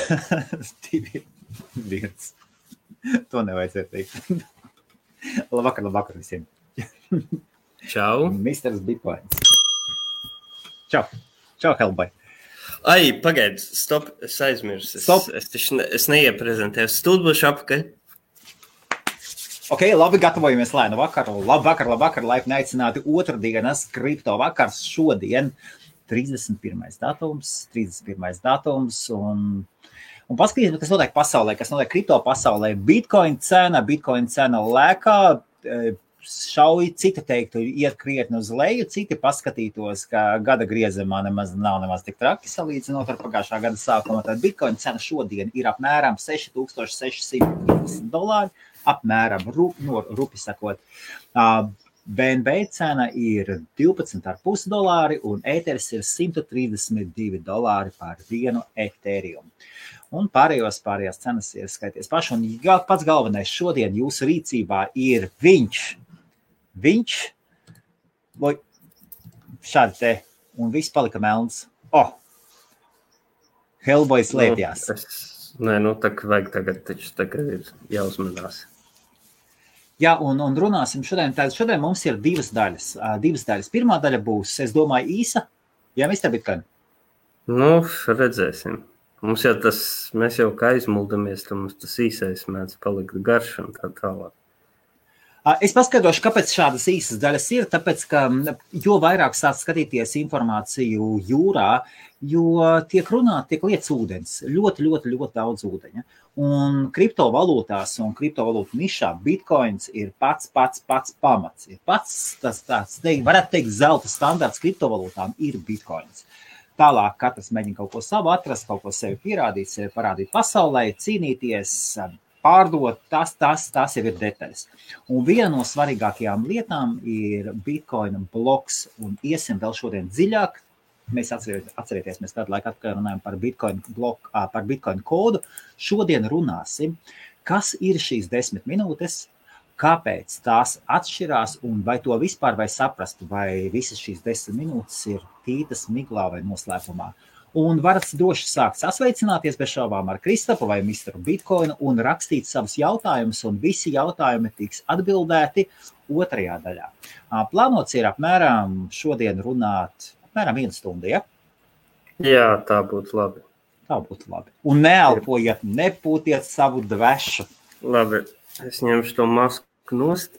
2, 1. To nevajadzētu teikt. Labvakar visiem. Čau. Misters Bitcoins. Čau, Helbai. Ai, pagaid, stop, es aizmirsu. Es neieprezentēju. Stūdbuši apakaļ. Ok, labi, gatavojamies lēnu vakaru. Labvakar, laipni aicināti otrdienas kripto vakars šodien. 31. datums un paskatīsim, kas notiek pasaulē, kas notiek kripto pasaulē. Bitcoin cena lēkā, šauj, citi teiktu, iet krietni uz leju, citi paskatītos, ka gada griezumā nav nemaz tik traki salīdzinot ar pagājušā gada sākumu. Tad Bitcoin cena šodien ir apmēram $6,650, apmēram, rupi sakot. BNB cena ir $12,5 un Ethers ir $132 par vienu Ethereum. Un pārējās cenas ir skaities paši. Un pats galvenais šodien jūsu rīcībā ir viņš, vai šādi te, un viss palika melns. Hellboy slēpjās. Nē, tā kā vajag tagad ir jāuzmanās. Jā, un runāsim šodien. Šodien mums ir divas daļas. Pirmā daļa būs, es domāju, īsa. Jā, Mr. Bitcoin? Redzēsim. Mēs jau kā aizmuldamies, tad mums tas īsais mēdz palikt garš un tā tālāk. Es paskaidrošu, kāpēc šādas īsas daļas ir, tāpēc, ka jo vairāk sāc skatīties informāciju jūrā, jo tiek lietas ūdens, ļoti daudz ūdeņa. Un kriptovalūtās un kriptovalūtu nišā Bitcoins ir pats pamats. Ir pats tāds, varētu teikt, zelta standarts kriptovalūtām ir Bitcoins. Tālāk katrs mēģina kaut ko savu atrast, kaut ko sevi pierādīt, sevi parādīt pasaulē, cīnīties, pārdot, tas jau ir detaļas. Un viena no svarīgākajām lietām ir Bitcoin bloks, un iesim vēl šodien dziļāk. Mēs atcerieties, mēs kādu laiku atkārt runājam par Bitcoin bloku, par Bitcoin kodu. Šodien runāsim, kas ir šīs 10 minūtes, kāpēc tās atšķirās un vai to vispār vai saprast, vai visas šīs 10 minūtes ir tītas, miglā vai noslēpumā. Un varat droši sākt sasveicināties bez šaubām ar Kristapu vai Mr. Bitcoinu un rakstīt savus jautājumus, un visi jautājumi tiks atbildēti otrajā daļā. Plānots ir apmēram šodien runāt apmēram 1 stundu, ja? Jā, tā būtu labi. Un neelpojiet, nepūtiet savu dvešu. Labi, es ņemšu to masku nost.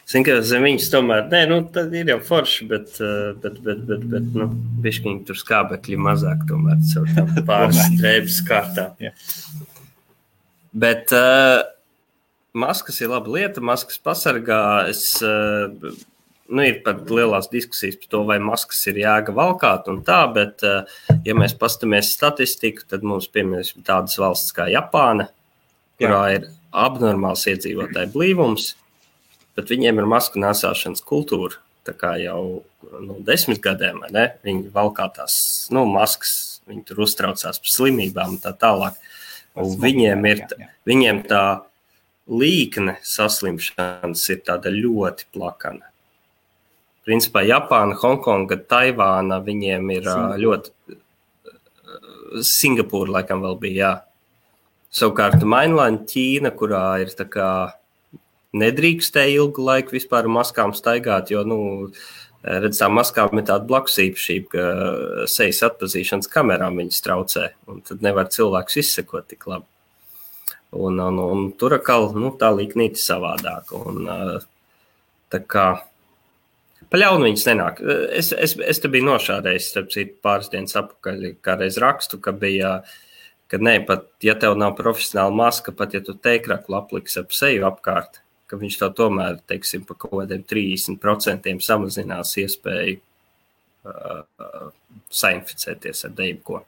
Zinu, ka zem viņas tomēr, tad ir jau forši, bet bišķiņi tur skābekļi mazāk tomēr, pāris drēbes kārtā. Bet maskas ir laba lieta, maskas pasargā. Ir pat lielās diskusijas par to, vai maskas ir jēga valkāt un tā, bet ja mēs pastamies statistiku, tad mums piemēram tādas valsts kā Japāna, kurā ir abnormāls iedzīvotāju blīvums, bet viņiem ir masku nēsāšanas kultūra, tā kā jau 10 gadiem, vai ne? Viņi valkā tās, maskas, viņi tur uztraucās par slimībām un tā tālāk. Un viņiem tā līkne saslimšanas ir tāda ļoti plakana. Principā Japāna, Hongkonga, Taivāna, viņiem ir ļoti... Singapūra laikam vēl bija, jā. Savukārt Mainland Ķīna, kurā ir tā kā nedrīkstēja ilgu laiku vispār maskām staigāt, jo, redz, tā maskām ir tāda blakus īpašība, ka sejas atpazīšanas kamerām viņas traucē, un tad nevar cilvēkus izsekot tik labi. Un tur atkal, tā līknīti savādāk, un tā kā paļaunu viņas nenāk. Es te biju nošādējis, starp citu, pāris dienas apakaļ, kādreiz rakstu, ka bija, ka pat, ja tev nav profesionāla maska, pat ja tu teikraklu apliks ap seju apkārt, ka viņš to tomēr, teiksim, pa kaut kādiem 30% samazinās iespēju sainficēties ar jebko.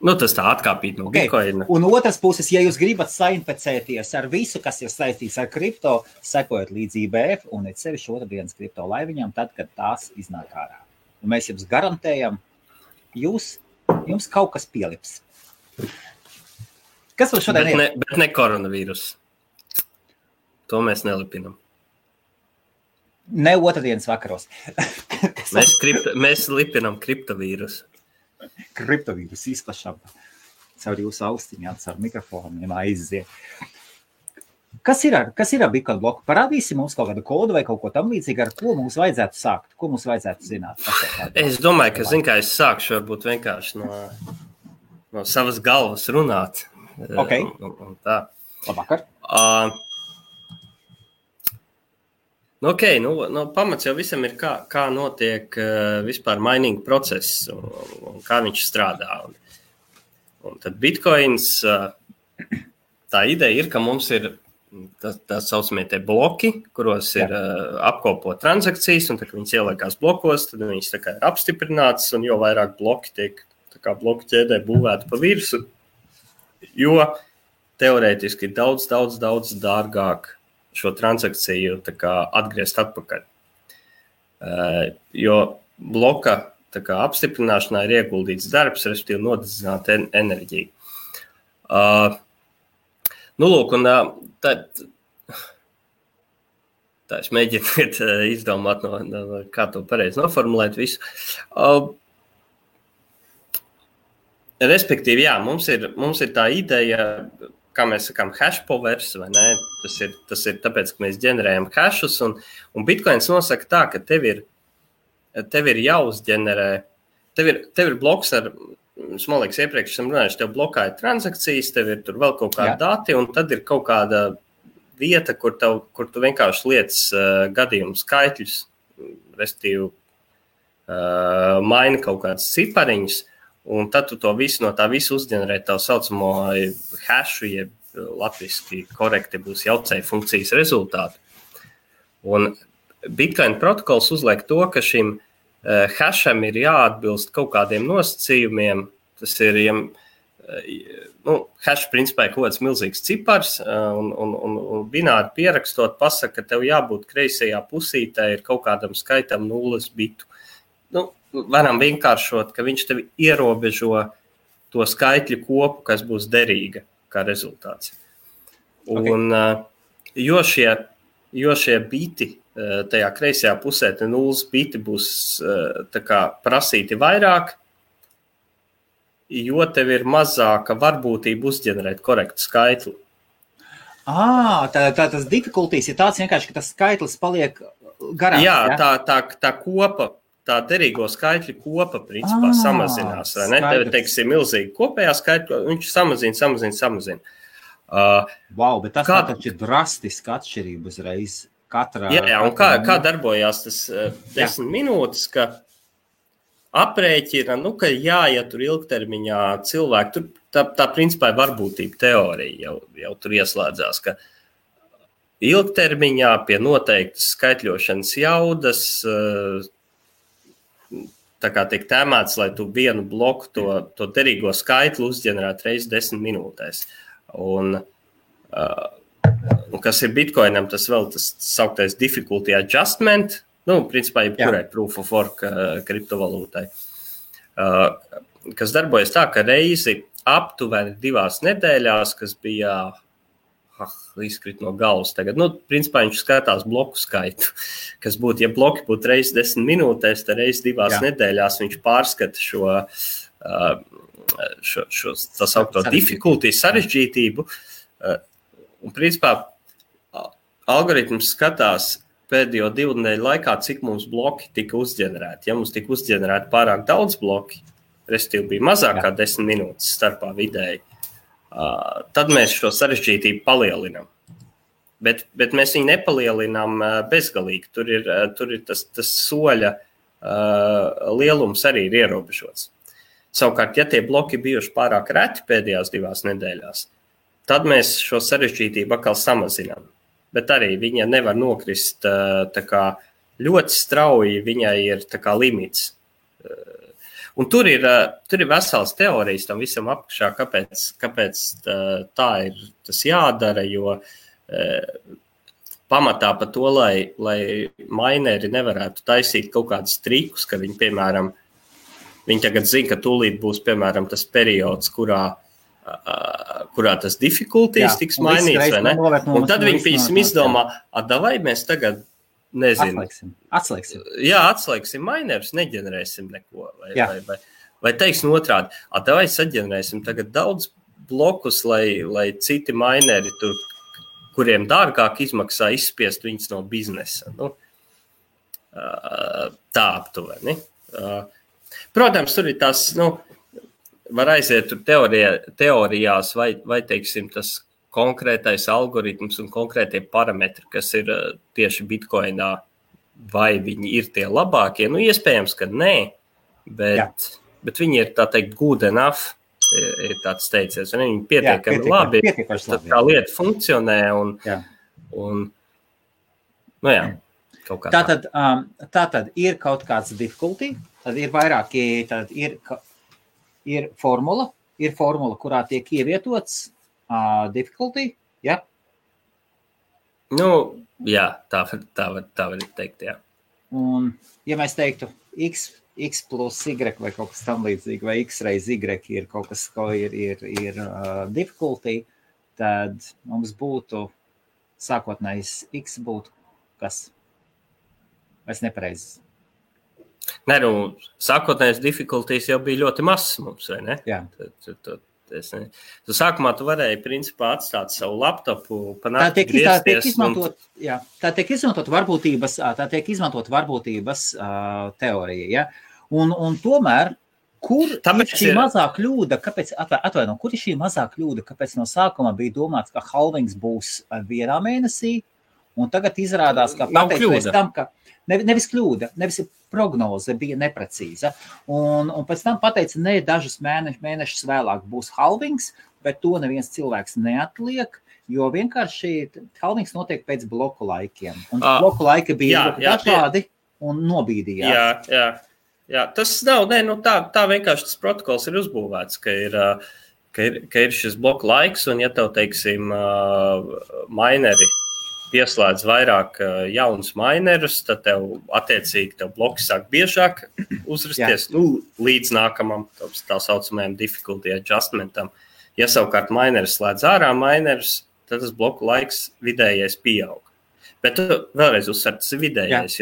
Tas tā atkāpīt no Bitcoina. Un otras puses, ja jūs gribat sainficēties ar visu, kas ir saistīts ar kripto, sekojot līdz IBF un sevišķi otrdienas kripto laiviņām, tad, kad tās iznāk ārā. Un mēs jums garantējam, jums kaut kas pielips. Kas vēl šodien ir? Bet ne koronavīrus. To mēs nelipinam. Ne otrdienas vakaros. Mēs lipinam kriptovīrusu. Kriptovīrus izplašam caur jūsu austiņām, caur mikrofoniem aiziet. Kas ir ar Bitcoin bloku? Parādīsi mums kaut kādu kodu vai kaut ko tam līdzīgi, ar ko mums vajadzētu sākt? Ko mums vajadzētu zināt? Es domāju, ka kā es sākšu varbūt vienkārši no savas galvas runāt. Okay. Un tā. Labvakar. Pamats jau visam ir, kā notiek vispār mining process un kā viņš strādā. Un tad Bitcoins, tā ideja ir, ka mums ir tā saucamie tie bloki, kuros ir apkopot transakcijas, un tā, ka viņas ieliekās blokos, tad viņas tā kā ir apstiprinātas, un jo vairāk bloki tiek tā kā bloku ķēdē būvēti pa virsu, jo teorētiski ir daudz dārgāk šo transakciju tā kā atgriezt atpakaļ. Jo bloka tā kā apstiprināšanā ir ieguldīts darbs, respektīvi nodedzināt enerģiju. Un tā es mēģinu izdomāt, kā to pareizi noformulēt visu. Respektīvi, jā, mums ir tā ideja, kā mēs sakām, hash powers, vai ne? Tas ir tāpēc, ka mēs ģenerējam hashus, un Bitcoins nosaka tā, ka tev ir jāuzģenerē, tev ir bloks ar, man liekas, iepriekš esam runājuši, tev blokā ir transakcijas, tev ir tur vēl kaut kādi dati, un tad ir kaut kāda vieta, kur tu vienkārši liec gadījumu skaitļus, respektīvi maini kaut kādas cipariņas, un tad tu to visu no tā visu uzģenerē tā saucamo hashu, jeb latviski korekti būs jaucēju funkcijas rezultātu. Un Bitcoin protokols uzliek to, ka šim hasham ir jāatbilst kaut kādiem nosacījumiem. Tas ir, hash principā ir kaut kāds milzīgs cipars, un bināri pierakstot pasaka, ka tev jābūt kreisajā pusītē ir kaut kādam skaitam 0 bitu. Varam vienkāršot, ka viņš tev ierobežo to skaitļu kopu, kas būs derīga kā rezultāts. Un, jo šie biti tajā kreisajā pusē, te 0 biti būs tā kā prasīti vairāk, jo tev ir mazāka varbūtība uzģenerēt korektu skaitli. Tā tas difficulties ir tāds vienkārši, ka tas skaitlis paliek garāks. Jā, tā kopa, tā derīgo skaitļu kopa principā samazinās, vai ne? Tev, teiksim, milzīgi kopējā skaitļa, viņš samazina. Wow, bet tas taču ir drastiski atšķirība uzreiz. Jā, un kā darbojās tas 10 minūtes, ka aprēķina, ka ja tur ilgtermiņā cilvēki, tā principā ir varbūtība teorija jau tur ieslēdzās, ka ilgtermiņā pie noteiktas skaitļošanas jaudas tā kā tiek tēmēts, lai tu vienu bloku to derīgo skaitli uzģenerētu reiz 10 minūtēs. Un kas ir Bitcoinam, tas vēl tas sauktais difficulty adjustment, principā jebkurai proof of work kriptovalūtai, kas darbojas tā, ka reizi aptuveni 2 nedēļās, kas bija izkrit no galvas tagad, principā viņš skatās bloku skaitu, kas būtu, ja bloki būtu reiz 10 minūtēs, tad reiz 2 nedēļās viņš pārskata šo tā saukto difficulty sarežģītību, un principā algoritms skatās pēdējo 2 nedēļu laikā, cik mums bloki tika uzģenerēti. Ja mums tika uzģenerēti pārāk daudz bloki, respektīvi bija mazāk kā 10 minūtes starpā vidēji, tad mēs šo sarežģītību palielinām. Bet mēs viņu nepalielinām bezgalīgi. Tur ir tas soļa lielums arī ir ierobežots. Savukārt, ja tie bloki bijuši pārāk reti pēdējās 2 nedēļās, tad mēs šo sarežģītību atkal samazinām. Bet arī viņa nevar nokrist tā kā ļoti strauji, viņai ir tā kā limits. Un tur ir vesels teorijas tam visam apakšā, kāpēc tā ir tas jādara, jo pamatā par to, lai mineri nevarētu taisīt kaut kādus trikus, ka viņi, piemēram, viņi tagad zina, ka tūlīt būs, piemēram, tas periods, kurā tas difficulties tiks mainīts, vai ne? Un tad viņi pīsim izdomā, vai mēs tagad, nezinu. Atslēgsim. Jā, atslēgsim minerus, neģenerēsim neko. Vai teiksim otrādi, vai saģenerēsim tagad daudz blokus, lai citi mineri tur, kuriem dārgāk izmaksā izspiest viņus no biznesa. Tā aptuveni. Protams, tur ir tās, var aiziet tur teorijās vai teiksim, tas konkrētais algoritms un konkrētie parametri, kas ir tieši Bitcoinā, vai viņi ir tie labākie. Iespējams, ka nē, bet viņi ir, tā teikt, good enough, ir tāds teiciens, un viņi pietiekami labi, tā lieta funkcionē, un kaut kā Tātad ir kaut kāds difficulty, tad ir vairāki, tad ir formula, kurā tiek ievietots difficulty, ja? Jā, tā var teikt, jā. Un, ja mēs teiktu x plus y vai kaut kas tam līdzīgi, vai x reiz y ir kaut kas, ko ir difficulty, tad mums būtu sākotnējs x būtu kas? Vai es nepareizes? Nē, sākotnējais difficulties jau bija ļoti mazs mums, vai ne? Jā. Sākumā tu varēji, principā, atstāt savu laptopu, tā tiek izmantot varbūtības teorija, ja? Un tomēr, kur ir šī mazā kļūda, kur ir šī mazā kļūda, kāpēc no sākuma bija domāts, ka halvings būs vienā mēnesī, un tagad izrādās, ka pateicoties tam, ka nevis kļūda, nevis prognoze bija neprecīza. Un pēc tam pateica, ne, dažus mēnešus vēlāk būs halvings, bet to neviens cilvēks neatliek, jo vienkārši halvings notiek pēc bloku laikiem. Un bloku laiki bija dažādi un nobīdījās. Jā, tas nav, tā vienkārši tas protokols ir uzbūvēts, ka ir šis bloku laiks, un ja tev, teiksim, mineri pieslēdz vairāk jaunus minerus, tad attiecīgi bloki sāk biežāk uzrasties līdz nākamam tā saucamajam difficulty adjustmentam. Ja savukārt mineris slēdz ārā minerus, tad tas bloku laiks vidējais pieaug. Bet vēlreiz uzsver, tas ir vidējais,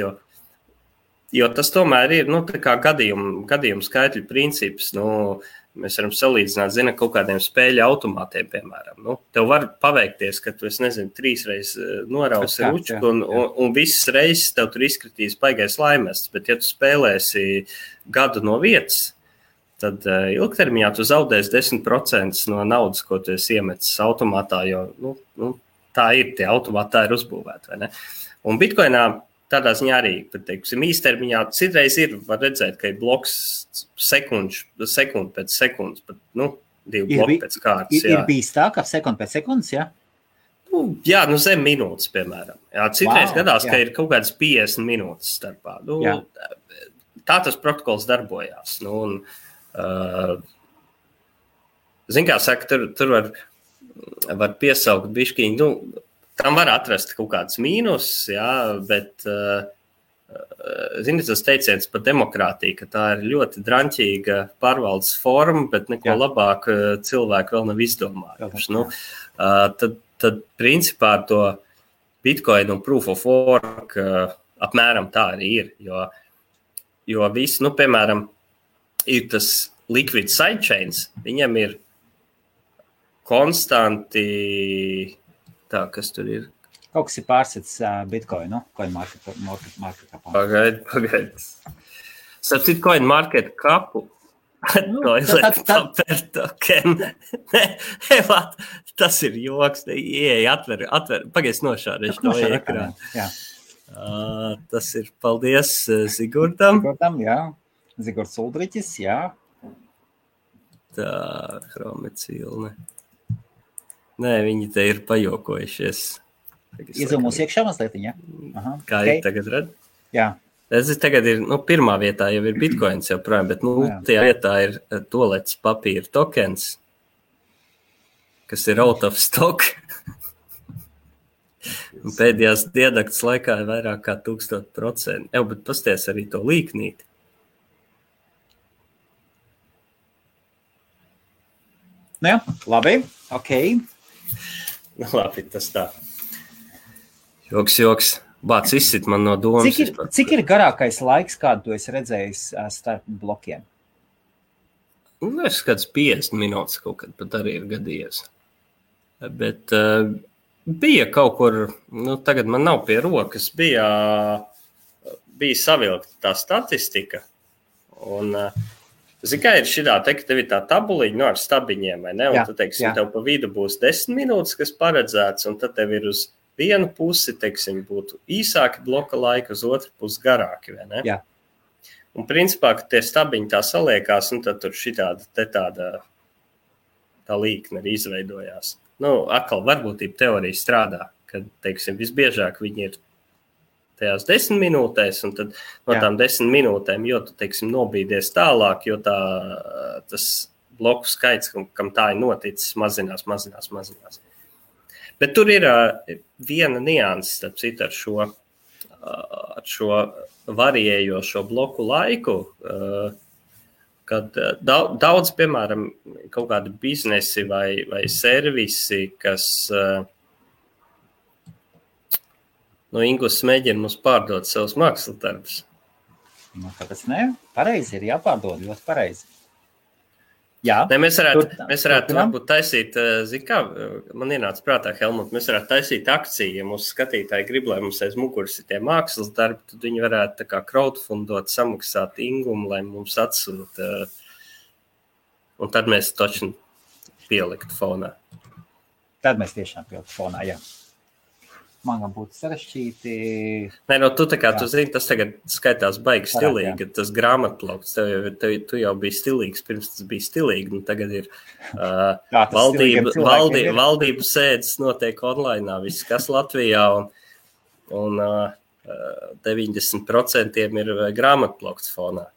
jo tas tomēr ir tā kā gadījumu skaitļu princips. Mēs varam salīdzināt, kaut kādiem spēļu automātiem, piemēram. Tev var paveikties, ka tu, 3 reizes norausi ručku, un visas reizes tev tur izkritīs baigais laimests, bet ja tu spēlēsi gadu no vietas, tad ilgtermiņā tu zaudēsi 10% no naudas, ko tu esi iemetis automātā, jo tā ir, tie automāti tā ir uzbūvēti, vai ne? Un Bitcoinā tādā ziņā arī, teiksim, īstermiņā citreiz var redzēt, ka ir bloks sekundi pēc sekundes, pat, 2 bloki pēc kārtas. Ir bijis tā, ka sekundi pēc sekundes, jā? Zem minūtes, piemēram. Citreiz gadās, ka ir kaut kādas 50 minūtes starpā. Tā tas protokols darbojās. Zin kā saka, tur var piesaukt bišķiņu, tam var atrast kaut kāds mīnus, bet, zini, tas teiciens par demokrātiju, ka tā ir ļoti draņķīga pārvaldes forma, bet neko labāk cilvēki vēl nav izdomājuši. Tad principā to Bitcoin un Proof of Work apmēram tā arī ir, jo visi, piemēram, ir tas liquid sidechains, viņam ir konstanti. Tā, kas tur ir? Kaut kas ir pārsits Bitcoinu, CoinMarketCap. Pagaid. Starp citu CoinMarketCapu. Tas ir joks. Ieeja, atver. Pagaid nošārēšu to ekrānu. Tas ir, paldies Zigurdam. Zigurds Uldriķis, jā. Tā, Chromecilne. Nē, viņi te ir pajokojušies. Iezūmos iekšā mazliet, jā? Kā ir tagad redz? Jā. Tagad ir, pirmā vietā jau ir Bitcoins joprojām, bet tajā vietā ir tolets papīra tokens, kas ir out of stock. Pēdējās diennakts laikā ir vairāk kā 1000%. Bet pasties arī to līknīti. Jā, labi, okei. Labi, tas tā. Joks. Bāc izsit man no domas. Cik ir garākais laiks, kādu tu esi redzējis starp blokiem? Es kāds 50 minūtes kaut kad pat arī ir gadījies. Bet bija kaut kur, tagad man nav pie rokas, bija savilkta tā statistika. Un, kā ir šitā, ka tev ir tā tabuliņa ar stabiņiem, vai ne? Un tu, teiksim, tev pa vidu būs 10 minūtes, kas paredzēts, un tad tev ir uz vienu pusi, teiksim, būtu īsāki bloka laika, uz otru pusi garāki, vai ne? Jā. Un principā, ka tie stabiņi tā saliekās, un tad tur šitāda tā līkne arī izveidojās. Atkal varbūtība teorija strādā, kad, teiksim, visbiežāk viņi ir tajās 10 minūtēs, un tad no tām 10 minūtēm, jo tu, teiksim, nobīdies tālāk, jo tas bloku skaits, kam tā ir noticis, mazinās. Bet tur ir viena nianses, starp citu, ar šo variējošo bloku laiku, kad daudz, piemēram, kaut kādi biznesi vai servisi, kas Inglis mēģina mums pārdot savus mākslas darbus. Kāpēc ne? Pareizi ir jāpārdod, ļoti pareizi. Jā. Ne, mēs varētu varbūt taisīt, man ienāca prātā, Helmut, mēs varētu taisīt akciju, ja mūsu skatītāji grib, lai mums aiz muguras ir tie mākslas darbi, tad viņi varētu tā kā crowdfundot, samaksāt Ingumu, lai mums atsūta, un tad mēs točni pieliktu fonā. Tad mēs tiešām pieliktu fonā, jā. Man būtu sarežģīti. Nē, tu tā kā tu zini, tas tagad skaitās baigi stilīgi, tas grāmatplaukts, tu jau biji stilīgs, pirms tas bija stilīgi, tagad ir valdību sēdes notiek online, viss kas Latvijā, un 90% ir grāmatplaukts fonā,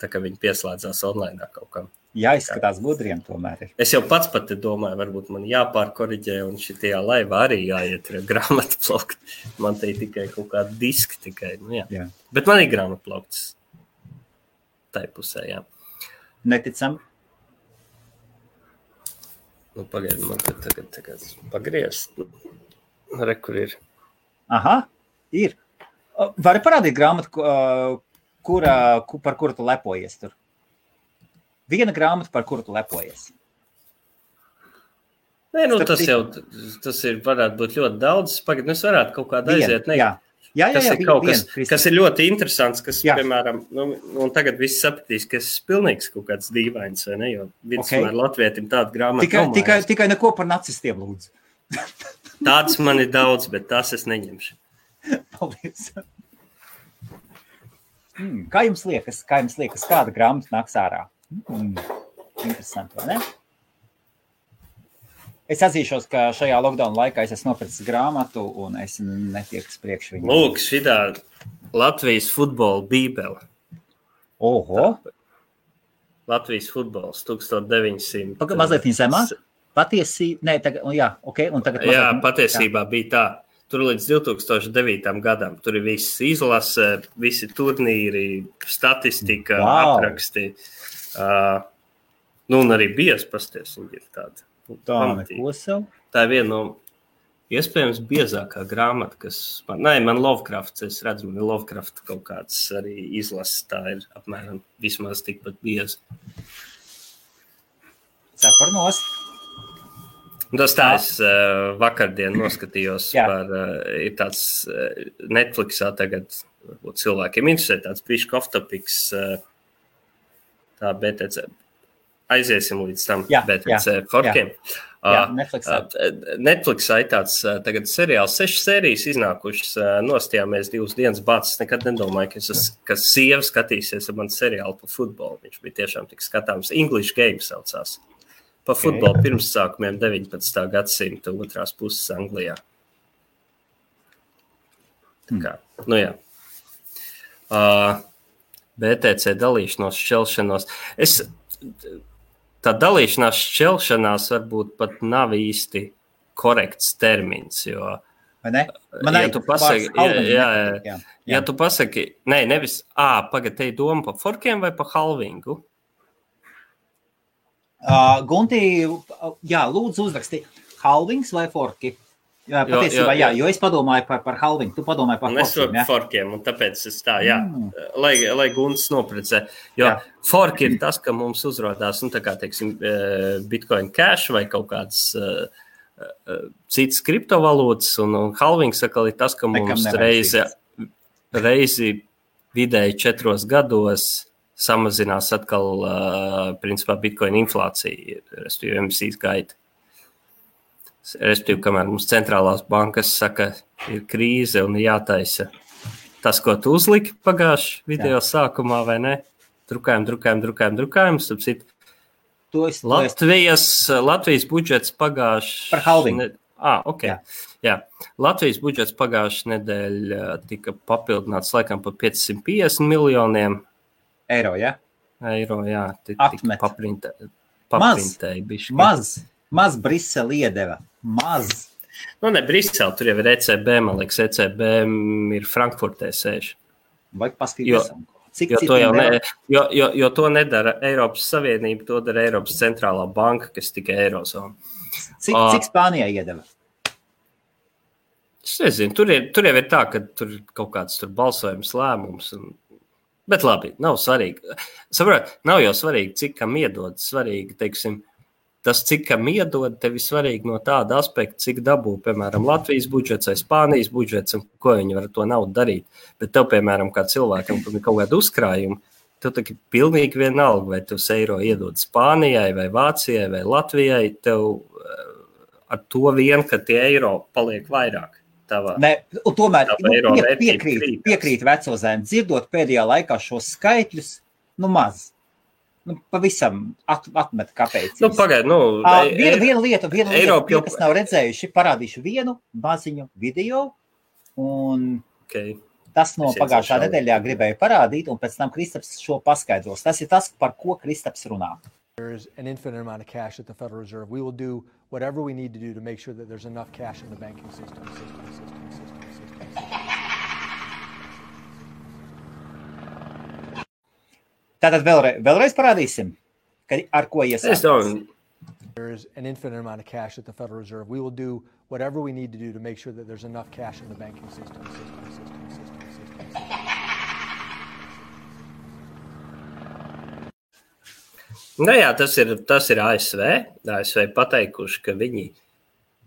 tā kā viņi pieslēdzās online kaut kam. Jāizskatās gudriem tomēr ir. Es jau pats pat domāju, varbūt man jāpārkoriģē, un šitajā laivā arī jāiet grāmatplaukt. Man te ir tikai kaut kāda diska tikai. Jā. Bet man ir grāmatplaukts tai pusē, jā. Neticam. Pagaidi, man tagad pagriezt. Re, kur ir? Aha, ir. Vari parādīt grāmatu, par kuru tu lepojies tur? Viena grāmata, par kuru tu lepojies. Nē, tas ir, varētu būt ļoti daudz. Pagad, es varētu kaut kādā aiziet. Kas ir ļoti interesants, kas, piemēram, un tagad viss sapratīs, ka es pilnīgs kaut kāds dīvains, vai ne, jo vidusmēr latvietim tāda grāmata tikai neko par nacistiem, lūdzu. Tāds man ir daudz, bet tās es neņemšu. Paldies. Kā jums liekas, kāda grāmata nāks ārā? Interesanti, vai ne? Es atzīšos, ka šajā lockdown laikā es esmu nopircis grāmatu un es netieku priekš viņu. Lūk, šitā Latvijas futbola bībele. Oho! Latvijas futbols 1900. Mazliet viņa zemā? Patiesībā, nē, tagad, un tagad mazliet, patiesībā bija tā. Tur līdz 2009. gadam. Tur ir viss izlase, visi turnīri, statistika, apraksti. Un arī bies pasties, viņi ir tāda. Neko sev. Tā ir viena no iespējams biezākā grāmata, kas man Lovecrafts, es redzu, man Lovecraft kaut kāds arī izlases, tā ir apmēram vismaz tikpat bieza. Ceparnos. Tas tā es vakardien noskatījos ir tāds Netflixā tagad, varbūt cilvēkiem interesē, tāds bišķi off-topics, tā BTC. Aiziesim līdz tam BTC forkiem. Netflixā ir tāds tagad seriāls, 6 sērijas iznākušas, nostājāmies 2 dienas bācis. Nekad nedomāju, ka sieva skatīsies ar mani seriālu par futbolu. Viņš bija tiešām tik skatāms. English Game saucās. Par futbolu pirmsākumiem 19. gadsimta otrās puses Anglijā. Tā kā, jā. BTC dalīšanos, šķelšanos. Tā dalīšanās šķelšanās varbūt pat nav īsti korekts termins, jo, ja tu pasaki, nevis, te ir doma par forkiem vai par halvingu? Gunti, lūdzu uzraksti, halvings vai forki? Jā, patiesībā, jo es padomāju par halvingu, tu padomāji par forkiem, ja? Forkiem, un tāpēc es tā, jā, lai Gunts noprecē. Jo forki ir tas, ka mums uzrodās, tā kā, teiksim, Bitcoin Cash vai kaut kāds citas kriptovalūtas, un halvings atkal ir tas, ka mums reizi vidēji 4 gados samazinās atkal, principā, Bitcoin inflācija, respektīvi emisijas gaita. Respektīvi, kamēr mums centrālās bankas saka, ir krīze un jātaisa tas, ko tu uzliki pagājuši video sākumā, vai ne? Drukājam. Latvijas budžets pagājuši... Par halvingu. Jā. Latvijas budžets pagājuši nedēļa tika papildināts laikam par 550 miljoniem. Eiro, ja? Eiro, jā. Atmet. Paprintēja. Maz Brisele iedeva. Maz. Nu, ne Brisele, tur jau ir ECB, man liekas, ECB ir Frankfurtē sēž. Vajag paskatīties. Jo to nedara Eiropas Savienība, to dara Eiropas centrālā banka, kas tikai Eirozona. Cik Spānijā iedeva? Es nezinu, tur jau ir tā, ka tur kaut kāds tur balsojums lēmums. Bet labi, nav svarīgi. Saprot, nav jau svarīgi, cik kam iedod. Svarīgi, teiksim, tas, cik kam iedod, tev ir svarīgi no tāda aspekta, cik dabū, piemēram, Latvijas budžets vai Spānijas budžets, un ko viņi var to naudu darīt. Bet tev, piemēram, kā cilvēkam, kur ir kaut kāda uzkrājuma, tev tā ir pilnīgi vienalga, vai tu eiro iedod Spānijai, vai Vācijai, vai Latvijai, tev ar to vien, ka tie eiro paliek vairāk. Un tomēr piekrīt Vecozēm, dzirdot pēdējā laikā šos skaitļus, maz. Pavisam atmet kāpēc. Pagaid, viena lieta, kas nav redzējuši, parādīšu vienu maziņu video, un tas no pagājušā nedēļā gribēju parādīt, un pēc tam Kristaps šo paskaidros. Tas ir tas, par ko Kristaps runā. There's an infinite amount of cash at the Federal Reserve. We will do whatever we need to do to make sure that there's enough cash in the banking system. Tātad vēlreiz parādīsim, ar ko iesākās. There's an infinite amount of cash at the Federal Reserve. We will do whatever we need to do to make sure that there's enough cash in the banking system. Jā, tas ir ASV. ASV pateikuši, ka viņi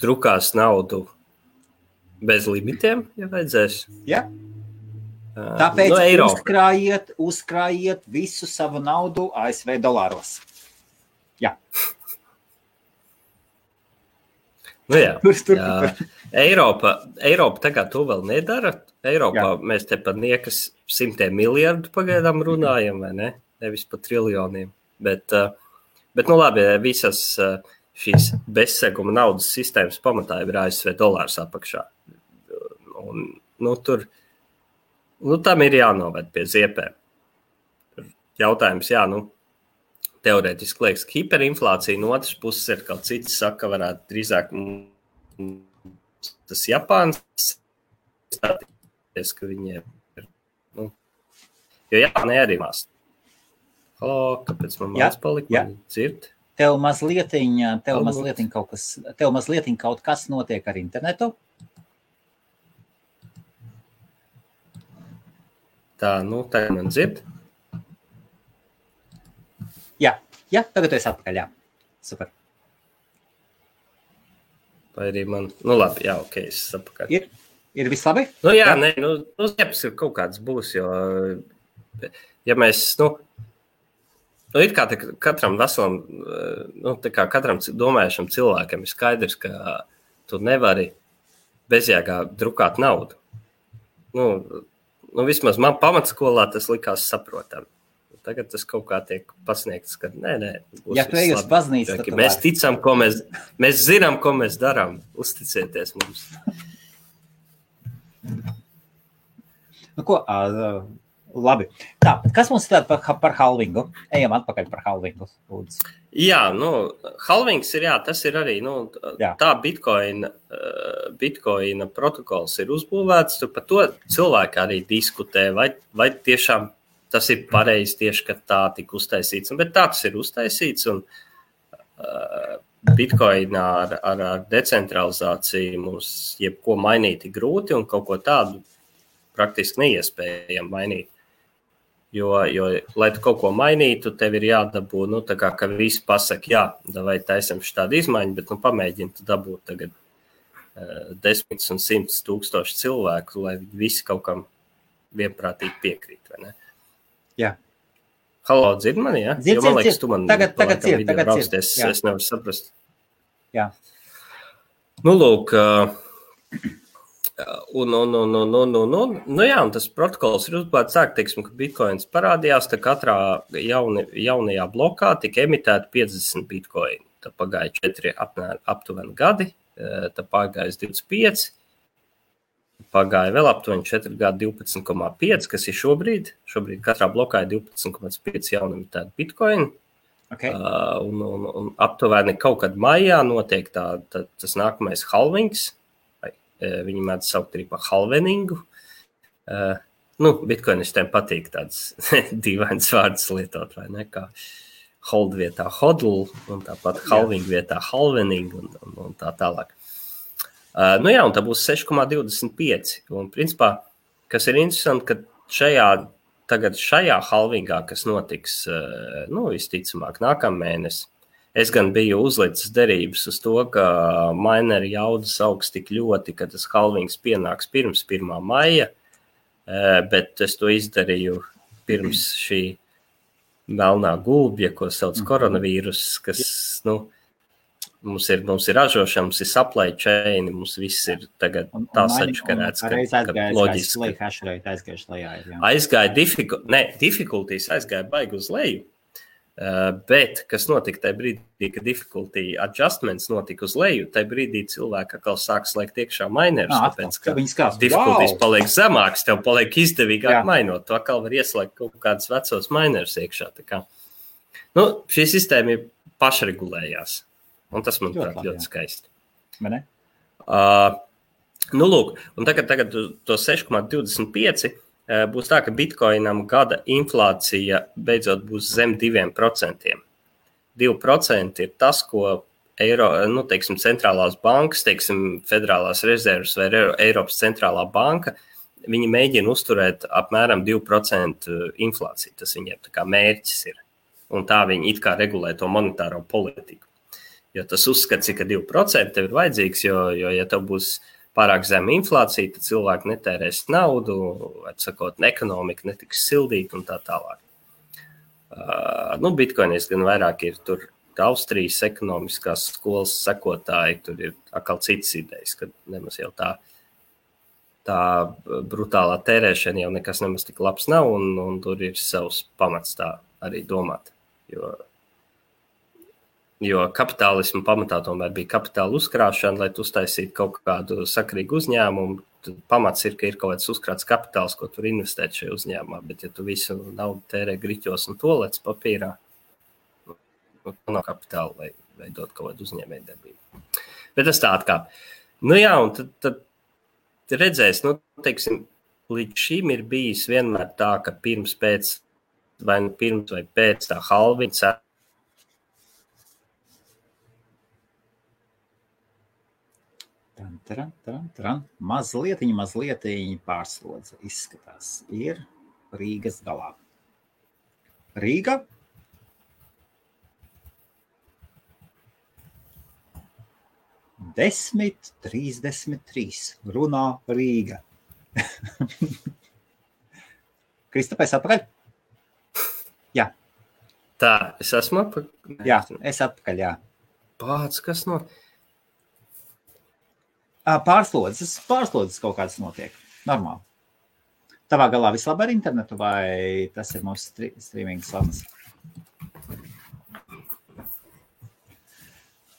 drukās naudu bez limitiem, ja vajadzēs. Jā. Tāpēc uzkrājiet visu savu naudu ASV dolāros. Jā. Eiropa tagad to vēl nedara. Eiropā mēs te par niekas 100 miljardu pagaidām runājam, vai ne? Nevis par triljoniem. Bet labi, visas šīs bezseguma naudas sistēmas pamatā ir ASV dolārs apakšā. Un tur, tam ir jānoved pie ziepēm. Jautājums, teorētiski liekas, ka hiperinflācija no otras puses ir kaut cits saka, varētu drīzāk tas Japāns stāties, ka viņiem ir, jo Japānai arī mās. Halo, kāpēc man māc palika? Man dzird? Tev mazliet kaut kas notiek ar internetu? Tā, tagad man dzird? Jā, tagad es atpakaļ, jā. Super. Vai arī man, labi, jā, ok, es atpakaļ. Ir viss labi? Ziepas ir kaut kāds būs, jo, ja mēs, ir kā katram veselam, tā kā katram domājušam cilvēkam ir skaidrs, ka tu nevari bezjēgā drukāt naudu. Vismaz man pamatskolā tas likās saprotam. Tagad tas kaut kā tiek pasniegts, ka nē. Ja tu ej uz baznīcu, tad mēs ticam, mēs zinām, ko mēs darām. Uzticieties mums. Labi. Tā, kas mums ir par halvingu? Ejam atpakaļ par halvingu. Lūdzu. Jā, halvings ir, tas ir arī, tā Bitcoina protokols ir uzbūvēts, tur par to cilvēki arī diskutē, vai tiešām tas ir pareizi tieši, ka tā tika uztaisīts. Bet tā tas ir uztaisīts, un Bitcoinā ar decentralizāciju mums jebko mainīt ir grūti un kaut ko tādu praktiski neiespējami mainīt. Jo, lai tu kaut ko mainītu, tev ir jādabū, tā kā, ka visi pasaka, jā, vai taisam šādu izmaiņu, bet pamēģini tu dabūt tagad 10 un 100 tūkstoši cilvēku, lai visi kaut kam vienprātīgi piekrīt, vai ne? Jā. Halo, dzird mani, jā? Dzird, man liekas, tu man tagad dzird. Es nevaru saprast. Jā. Lūk, un tas protokols ir uzbūvēts tā, ka bitcoins parādījās, tā katrā jaunajā blokā tika emitēta 50 bitcoini. Tā pagāja 4 aptuveni gadi, tā pagāja 25, pagāja vēl aptuveni 4 gadi 12,5, kas ir šobrīd. Šobrīd katrā blokā ir 12,5 jaunemitēta bitcoini. Okay. Un aptuveni kaut kad maijā notiek tas nākamais halvings. Viņi mēdz saukt arī par halveningu. Bitcoinistiem patīk tāds dīvains vārds lietot, vai ne? Kā hold vietā hodl, un tāpat halving vietā halvening, un tā tālāk. Un tā būs 6,25. Un principā, kas ir interesanti, ka šajā halvingā, kas notiks, visticamāk, nākamēnes, es gan biju uzlicis derības uz to, ka mineri jaudas augs tik ļoti, ka tas halvings pienāks pirms 1. maija, bet es to izdarīju pirms šī melnā gulbja, ko sauc koronavīrus, kas, mums ir ražošana, mums ir supply chain, mums viss ir tagad tā sačkarēts, ka loģiski. Aizgāja difficulties aizgāja baigi uz leju. Bet, kas notika tajā brīdī, kad difficulty adjustments notika uz leju, tajā brīdī cilvēki atkal sāk slēgt iekšā minerus, tāpēc, ka difficulties paliek zemāks, tev paliek izdevīgāk mainot, tu atkal var ieslēgt kaut kādus vecos minerus iekšā. Tā kā. Šī sistēma ir pašregulējās, un tas, manuprāt, ļoti skaisti. Vai ne? Lūk, un tagad to 6,25 būs tā, ka bitcoinam gada inflācija beidzot būs zem 2%. 2% ir tas, ko centrālās bankas, Federālās rezerves vai Eiropas centrālā banka, viņi mēģina uzturēt apmēram 2% inflāciju. Tas viņiem tā kā mērķis ir. Un tā viņi it kā regulē to monetāro politiku. Jo tas uzskats ir, ka 2% tev ir vajadzīgs, jo ja tev būs pārāk zema inflācija, tad cilvēki netērēs naudu, atsakot, ekonomika netiks sildīta un tā tālāk. Bitcoinis gan vairāk ir tur Austrijas ekonomiskās skolas sekotāji, tur ir atkal citas idejas, ka nemaz jau tā brutālā tērēšana jau nekas nemaz tik labs nav, un tur ir savs pamats tā arī domāt. Jo kapitālismu pamatā tomēr bija kapitāla uzkrāšana, lai tu uztaisītu kaut kādu sakarīgu uzņēmumu. Pamats ir, ka ir kaut kāds uzkrāts kapitāls, ko tur investēt šajā uzņēmumā, bet ja tu visu naudu tērē griķos un tolets papīrā, nav kapitāla, lai veidot kaut kādu uzņēmējdarbību. Bet tas tā atkāp. Un tad redzēs, līdz šim ir bijis vienmēr tā, ka pirms vai pēc tā halvinga Mazliet pārslodze izskatās. Ir Rīgas galā. Rīga. Desmit 33. Runā Rīga. Kristapais atpakaļ? Jā. Tā, es esmu atpakaļ? Jā, es atpakaļ, jā. Pāc, kas no... Pārslodzes kaut kāds notiek. Normāli. Tavā galā viss labi ar internetu vai tas ir mūsu streaming slanas?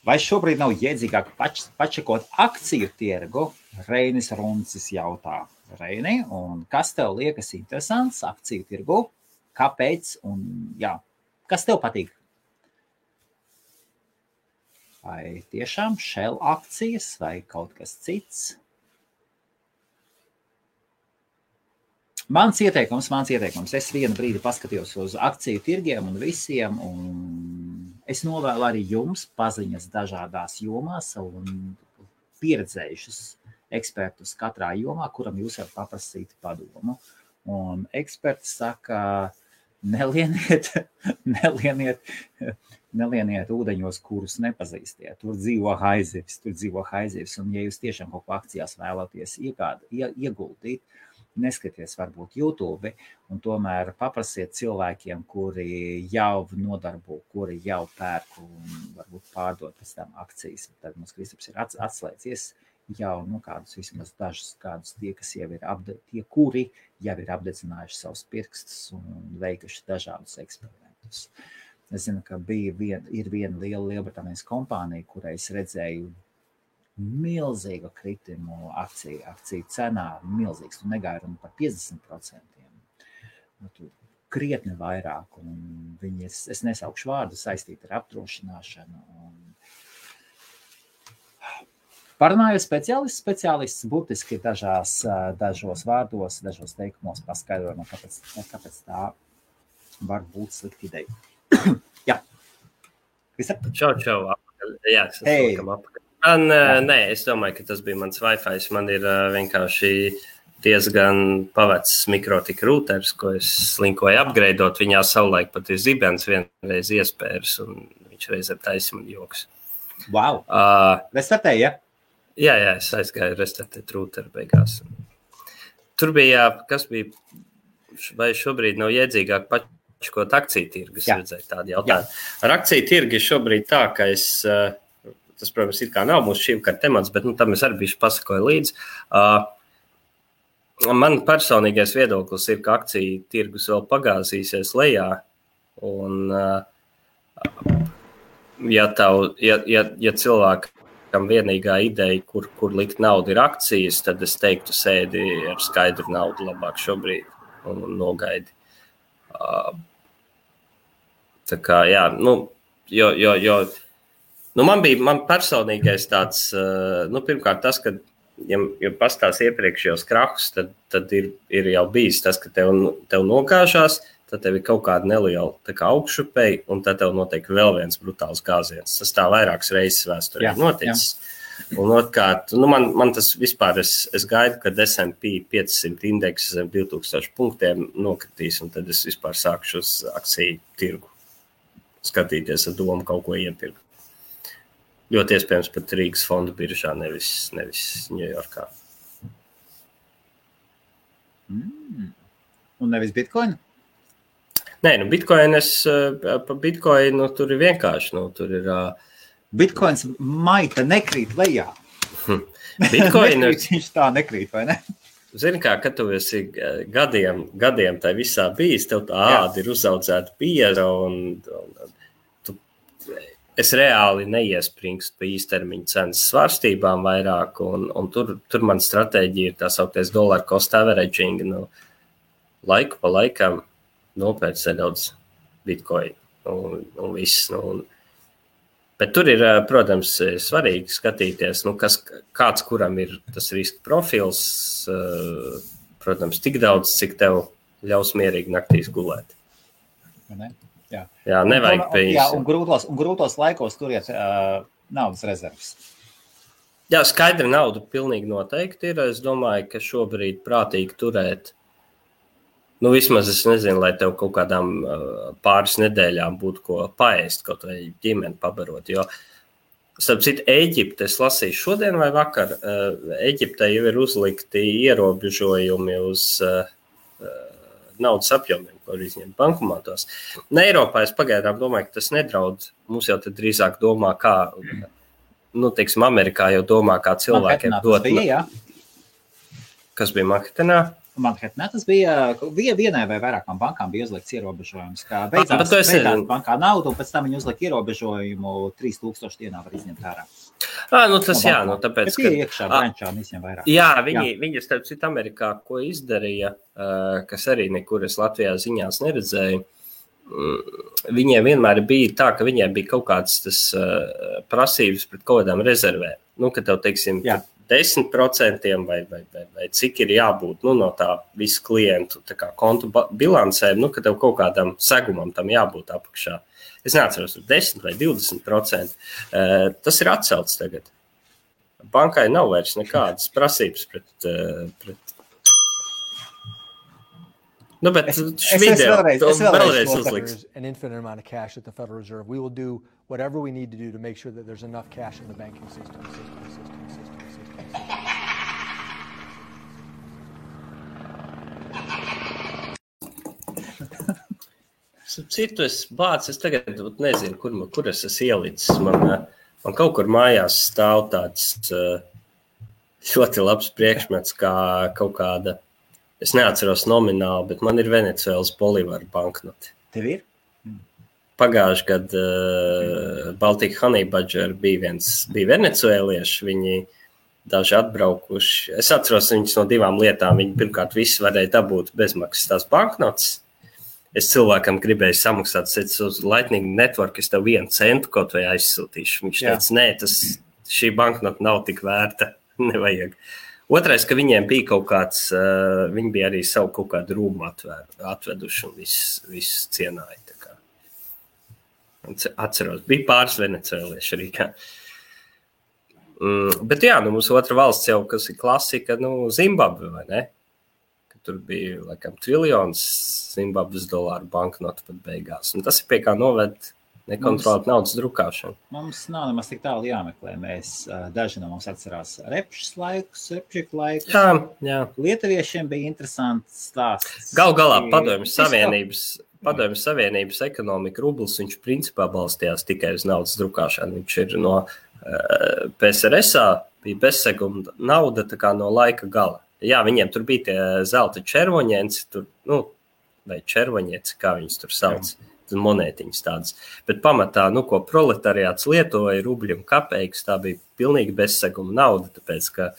Vai šobrīd nav jēdzīgāk pačekot akciju tirgu? Reinis Runcis jautā. Reini, un kas tev liekas interesants akciju tirgu? Kāpēc? Un kas tev patīk? Vai tiešām Shell akcijas vai kaut kas cits? Mans ieteikums. Es vienu brīdi paskatījos uz akciju tirgiem un visiem, un Es novēlu arī jums paziņas dažādās jomās un pieredzējušus ekspertus katrā jomā, kuram jūs varat paprasīt padomu. Un eksperti saka, nelieniet ūdeņos, kurus nepazīstiet. Tur dzīvo haizivis. Un ja jūs tiešām kaut ko akcijās vēlaties ieguldīt, neskaties varbūt YouTube, un tomēr paprasiet cilvēkiem, kuri jau nodarbo, kuri jau pērk un varbūt pārdot pēc tam akcijas. Tad mums Kristaps ir atslēdzies jau kādus vismaz dažus kādus tie, kas jau ir tie, kuri jau ir apdedzinājuši savus pirkstus un veikuši dažādus eksperimentus. Es zinu, ka ir viena liela Lielbritānijas kompānija, kurai es redzēju milzīgu kritimu akciju cenā, milzīgs, tu negāja runa par 50%. Krietni vairāk, un viņi, es nesaukšu vārdu, saistīti ar apdrošināšanu. Parunāju speciālists burtiski dažos vārdos, dažos teikumos paskaidrojumā, kāpēc tā var būt slikta ideja. Jā. Kristap? Čau. Jā, es esmu apakaļ. Nē, es domāju, ka tas bija mans Wi-Fi. Man ir vienkārši diezgan pavecs mikrotika rūters, ko es slinkoju apgreidot. Viņā savulaik pat ir zibens vienreiz iespērs, un viņš reizēm taisa man joks. Wow! Restartēji, ja? Jā, es aizgāju restartēt rūteru beigās. Tur bija, kas bija, vai šobrīd nav iedzīgāk pačkot akciju tirgus, redzēju tādu jautājumu. Ar akciju tirgu šobrīd tā, ka tas, protams, ir kā nav mūsu šī vakar temats, bet tam es arī bišķi pasakoju līdzi. Man personīgais viedoklis ir, ka akciju tirgus vēl pagāzīsies lejā, un ja cilvēkam vienīgā ideja, kur likt naudu ir akcijas, tad es teiktu sēdi ar skaidru naudu labāk šobrīd un nogaidi. Tā kā, jā, man personīgais tāds, pirmkārt tas, ka, ja pastāst iepriekšējos krahus, tad ir jau bijis tas, ka tev nogāžās, tad tev ir kaut kāda neliela tā kā augšupēja, un tad tev notiek vēl viens brutāls gāziens. Tas tā vairākas reizes vēsturē noticis. Un otrkārt, man tas vispār, es gaidu, kad S&P 500 indeks zem 2000 punktiem nokritīs, un tad es vispār sākšu uz akciju tirgu skatīties ar domu kaut ko iepirkt. Ļoti iespējams pat Rīgas fondu biržā, nevis Ņujorkā. Un nevis Bitcoin? Nē, pa Bitcoinu tur ir vienkārši, tur ir... Bitcoins maita nekrīt lejā. Viņš tā nekrīt, vai ne? Zini kā, kad tu esi gadiem tai visā bijis, tev tā āda ir uzaudzēta bieza, un es reāli neiespringstu pa īstermiņa cenas svārstībām vairāk, un tur man stratēģija ir tā sauktais dollar cost averaging, laiku pa laikam nopērc nedaudz Bitcoin un viss, bet tur ir, protams, svarīgi skatīties, kāds kuram ir tas riska profils, protams, tik daudz, cik tev ļaus mierīgi naktīs gulēt. Ne? Jā, nevajag pēc. Jā, un grūtos laikos turiet naudas rezerves. Jā, skaidra nauda pilnīgi noteikti ir. Es domāju, ka šobrīd prātīgi turēt, vismaz es nezinu, lai tev kaut kādām pāris nedēļām būtu ko paēst, kaut vai ģimeni pabarot, jo, starp citu, Ēģipte, es lasīju šodien vai vakar, Ēģiptē jau ir uzlikti ierobežojumi uz naudas apjomiem, ko var izņemt bankomātos. Eiropā es pagaidām domāju, ka tas nedraud. Mums jau tad drīzāk domā, kā, teiksim, Amerikā jau domā, kā cilvēkiem dot. Kas bija Manhetenā? Manhetenā tas bija vienai vai vairākām bankām bija uzlikts ierobežojums, kā beidzās bankā naudu, un pēc tam viņi uzlika ierobežojumu 3000 dienā var izņemt ārā. Tas jā, tāpēc, ka iekšā brančā visiem vairāk. Jā, viņi starp citu Amerikā, ko izdarīja, kas arī nekur es Latvijā ziņās neredzēju, viņiem vienmēr bija tā, ka viņiem bija kaut kāds tas prasības pret kaut kādām rezervēm. Ka tev, teiksim, 10% vai cik ir jābūt no tā visu klientu tā kā kontu bilancēm, ka tev kaut kādam segumam tam jābūt apakšā. es neatceros, 10 vai 20%. Tas ir atcelts tagad. Bankai nav vairs nekādas prasības pret Nu, bet vēlreiz uzliks. An infinite amount of cash at the Federal Reserve. We will do whatever we need to do to make sure that there's enough cash in the banking system. Citu es tagad nezinu, kur es esmu ielicis. Man kaut kur mājās stāv tāds ļoti labs priekšmets, kā kaut kāda, es neatceros nomināli, bet man ir Venecuēlas bolīvaru banknoti. Tev ir? Pagājuši gadu Baltika Honey Badger bija venecuēlieši, viņi daži atbraukuši. Es atceros viņus no 2 lietām. Viņi pirmkārt visi varēja dabūt bezmaksas tās banknotes. Es cilvēkam gribēju samaksāt uz Lightning Network, es tev 1 centu kaut vai aizsūtīšu. Viņš teica, nē, šī banknota nav tik vērta, nevajag. Otrais, ka viņiem bija kaut kāds, viņi bija arī savu kaut kādu rūmu atveduši un viss cienāja. Tā kā. Atceros, bija pāris venecuēlieši arī. Bet jā, mums otra valsts jau, kas ir klasika, Zimbabve, vai ne? Tur bija, laikam, triljons Zimbabves dolāru banknotu pat beigās. Un tas ir pie kā noved nekontrolēt naudas drukāšanu. Mums nav nemaz tik tālu jāmeklē. Daži no mums atcerās repšas laikus. Jā. Lietuviešiem bija interesants stāsts. Galā Padomju Savienības ekonomika rublis, viņš principā balstījās tikai uz naudas drukāšanu. Viņš ir no PSRS-ā, bija bezseguma nauda tā kā no laika gala. Jā, viņiem tur bija tie zelta červoņenci, vai červoņieci, kā viņus tur sauc, monētiņas tādas. Bet pamatā, ko proletariāts lietoja, rubļi un kapeikas, tā bija pilnīgi bezseguma nauda, tāpēc, ka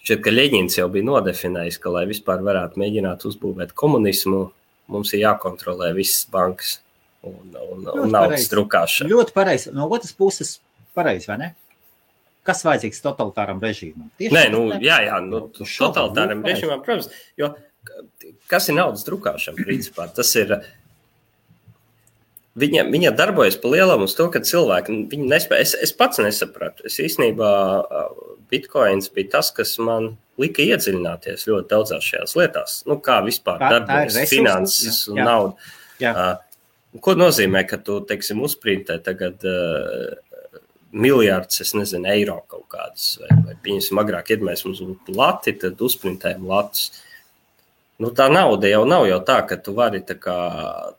šķiet, ka Ļeņins jau bija nodefinējis, ka, lai vispār varētu mēģināt uzbūvēt komunismu, mums ir jākontrolē visas bankas un naudas drukāšana. Ļoti pareizi. No otras puses pareizi, vai ne? Kas vajadzīgs totalitāram režīmam? Totalitāram režīmam, protams, jo kas ir naudas drukāšana, principā? Tas ir, viņa darbojas pa lielam uz to, ka cilvēki, viņi nespēja, es pats nesapratu, es īstenībā Bitcoins bija tas, kas man lika iedziļināties ļoti daudzās šajās lietās, kā vispār darbojas finanses un nauda. Ko nozīmē, ka tu, teiksim, uzprintē tagad miljārds, es nezinu, eiro kaut kādas, vai pieņemsim agrāk mums būtu lati, tad uzprintējam latus. Tā nauda jau nav jau tā, ka tu vari tā kā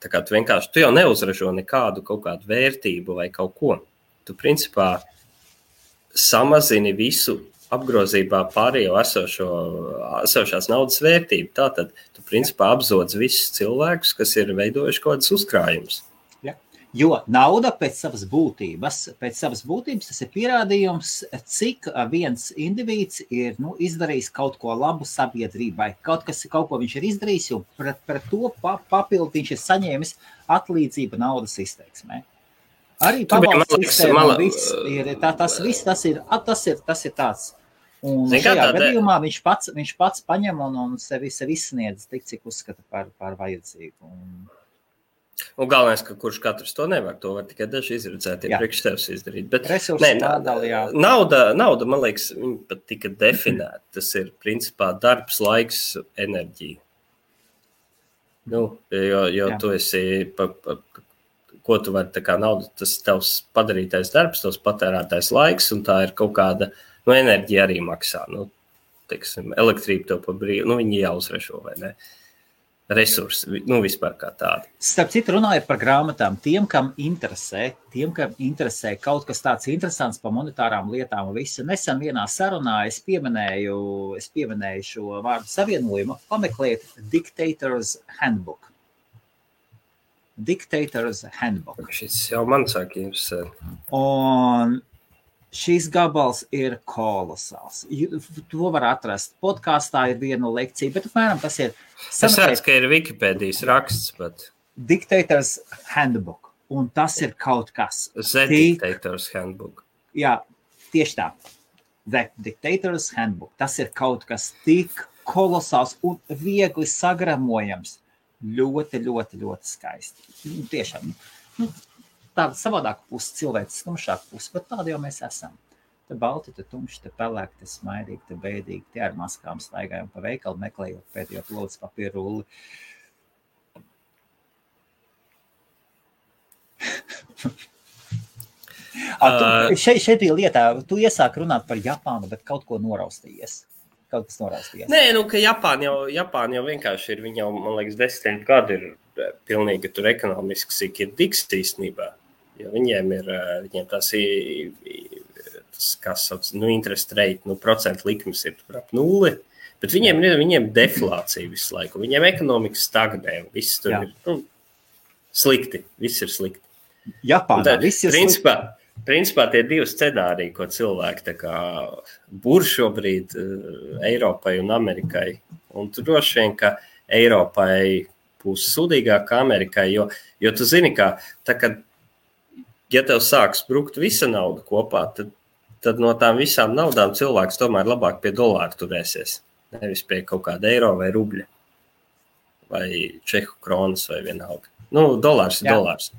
tu vienkārši, tu jau neuzražo nekādu kaut kādu vērtību vai kaut ko. Tu principā samazini visu apgrozībā pārējo esošās naudas vērtību. Tātad tu principā apzodz visus cilvēkus, kas ir veidojuši kaut kādas uzkrājumus. Jo nauda pēc savas būtības tas ir pierādījums, cik viens indivīds ir izdarījis kaut ko labu sabiedrībai. Kaut ko viņš ir izdarījis, un pret to papildu viņš ir saņēmis atlīdzību naudas izteiksmē. Arī pabalstu sistēma, tas ir tāds. Un šajā gadījumā viņš pats paņem un sevi izsniedz tik, cik uzskata par vajadzīgu. Un galvenais, ka kurš katrs to nevar, to var tikai daži izredzētie priekš sevis izdarīt. Bet nauda, man liekas, viņa pat tika definēta. Tas ir, principā, darbs, laiks, enerģija. Jo tu esi, ko tu vari, tā kā nauda, tas tavs padarītais darbs, tavs patērētais laiks, un tā ir kaut kāda, enerģija arī maksā. Teiksim, elektrība tev pa brīvu, viņi jāuzražo, vai ne? Resursi, vispār kā tādi. Starp citu, runājot par grāmatām, tiem, kam interesē kaut kas tāds interesants par monetārām lietām un visu. Nesen vienā sarunā es pieminēju šo vārdu savienojumu, pameklēt Dictator's Handbook. Dictator's Handbook. Šis jau man sāk interesēt. Un šīs gabals ir kolosāls. To var atrast. Podkāstā ir viena lekcija, bet apmēram tas ir... Es redzu, ka ir Wikipēdijas raksts, bet... Dictator's Handbook. Un tas ir kaut kas... Dictator's Handbook. Jā, tieši tā. Dictator's Handbook. Tas ir kaut kas tik kolosāls un viegli sagramojams. ļoti, ļoti, ļoti skaisti. Tiešām, tāda savādāka puse, cilvēks tumšāka puse, bet tāda jau mēs esam. Te balti, te tumši, te pelēki, te smaidīgi, te bēdīgi, te ar maskām staigājam pa veikalu, meklējot pēdējo plodas papīru rulli. Šeit bija lietā, tu iesāk runāt par Japānu, bet kaut ko noraustījies. Kaut kas noraustījies. Nē, ka Japāna jau vienkārši ir, viņa jau, man liekas, 10 gadi ir pilnīgi tur ekonomiski sik ir diks īstenībā. Jo viņiem tas kā sauc, interest rate, procentu likmes ir ap 0, bet viņiem deflācija visu laiku. Viņiem ekonomika stagnē, viss tur ir slikti, viss ir slikti. Japānā viss ir slikti. Principā tie divi scenāriji, ko cilvēki tā kā bur šobrīd Eiropai un Amerikai. Un tu droši vien, ka Eiropai būs sūdīgāk kā Amerikai, jo tu zini, ka tā, kad, ja tev sāks brukt visa nauda kopā, tad no tām visām naudām cilvēks tomēr labāk pie dolāra turēsies. Nevis pie kaut kāda eiro vai rubļa vai čehu kronas vai vienalga. Dolārs ir dolārs.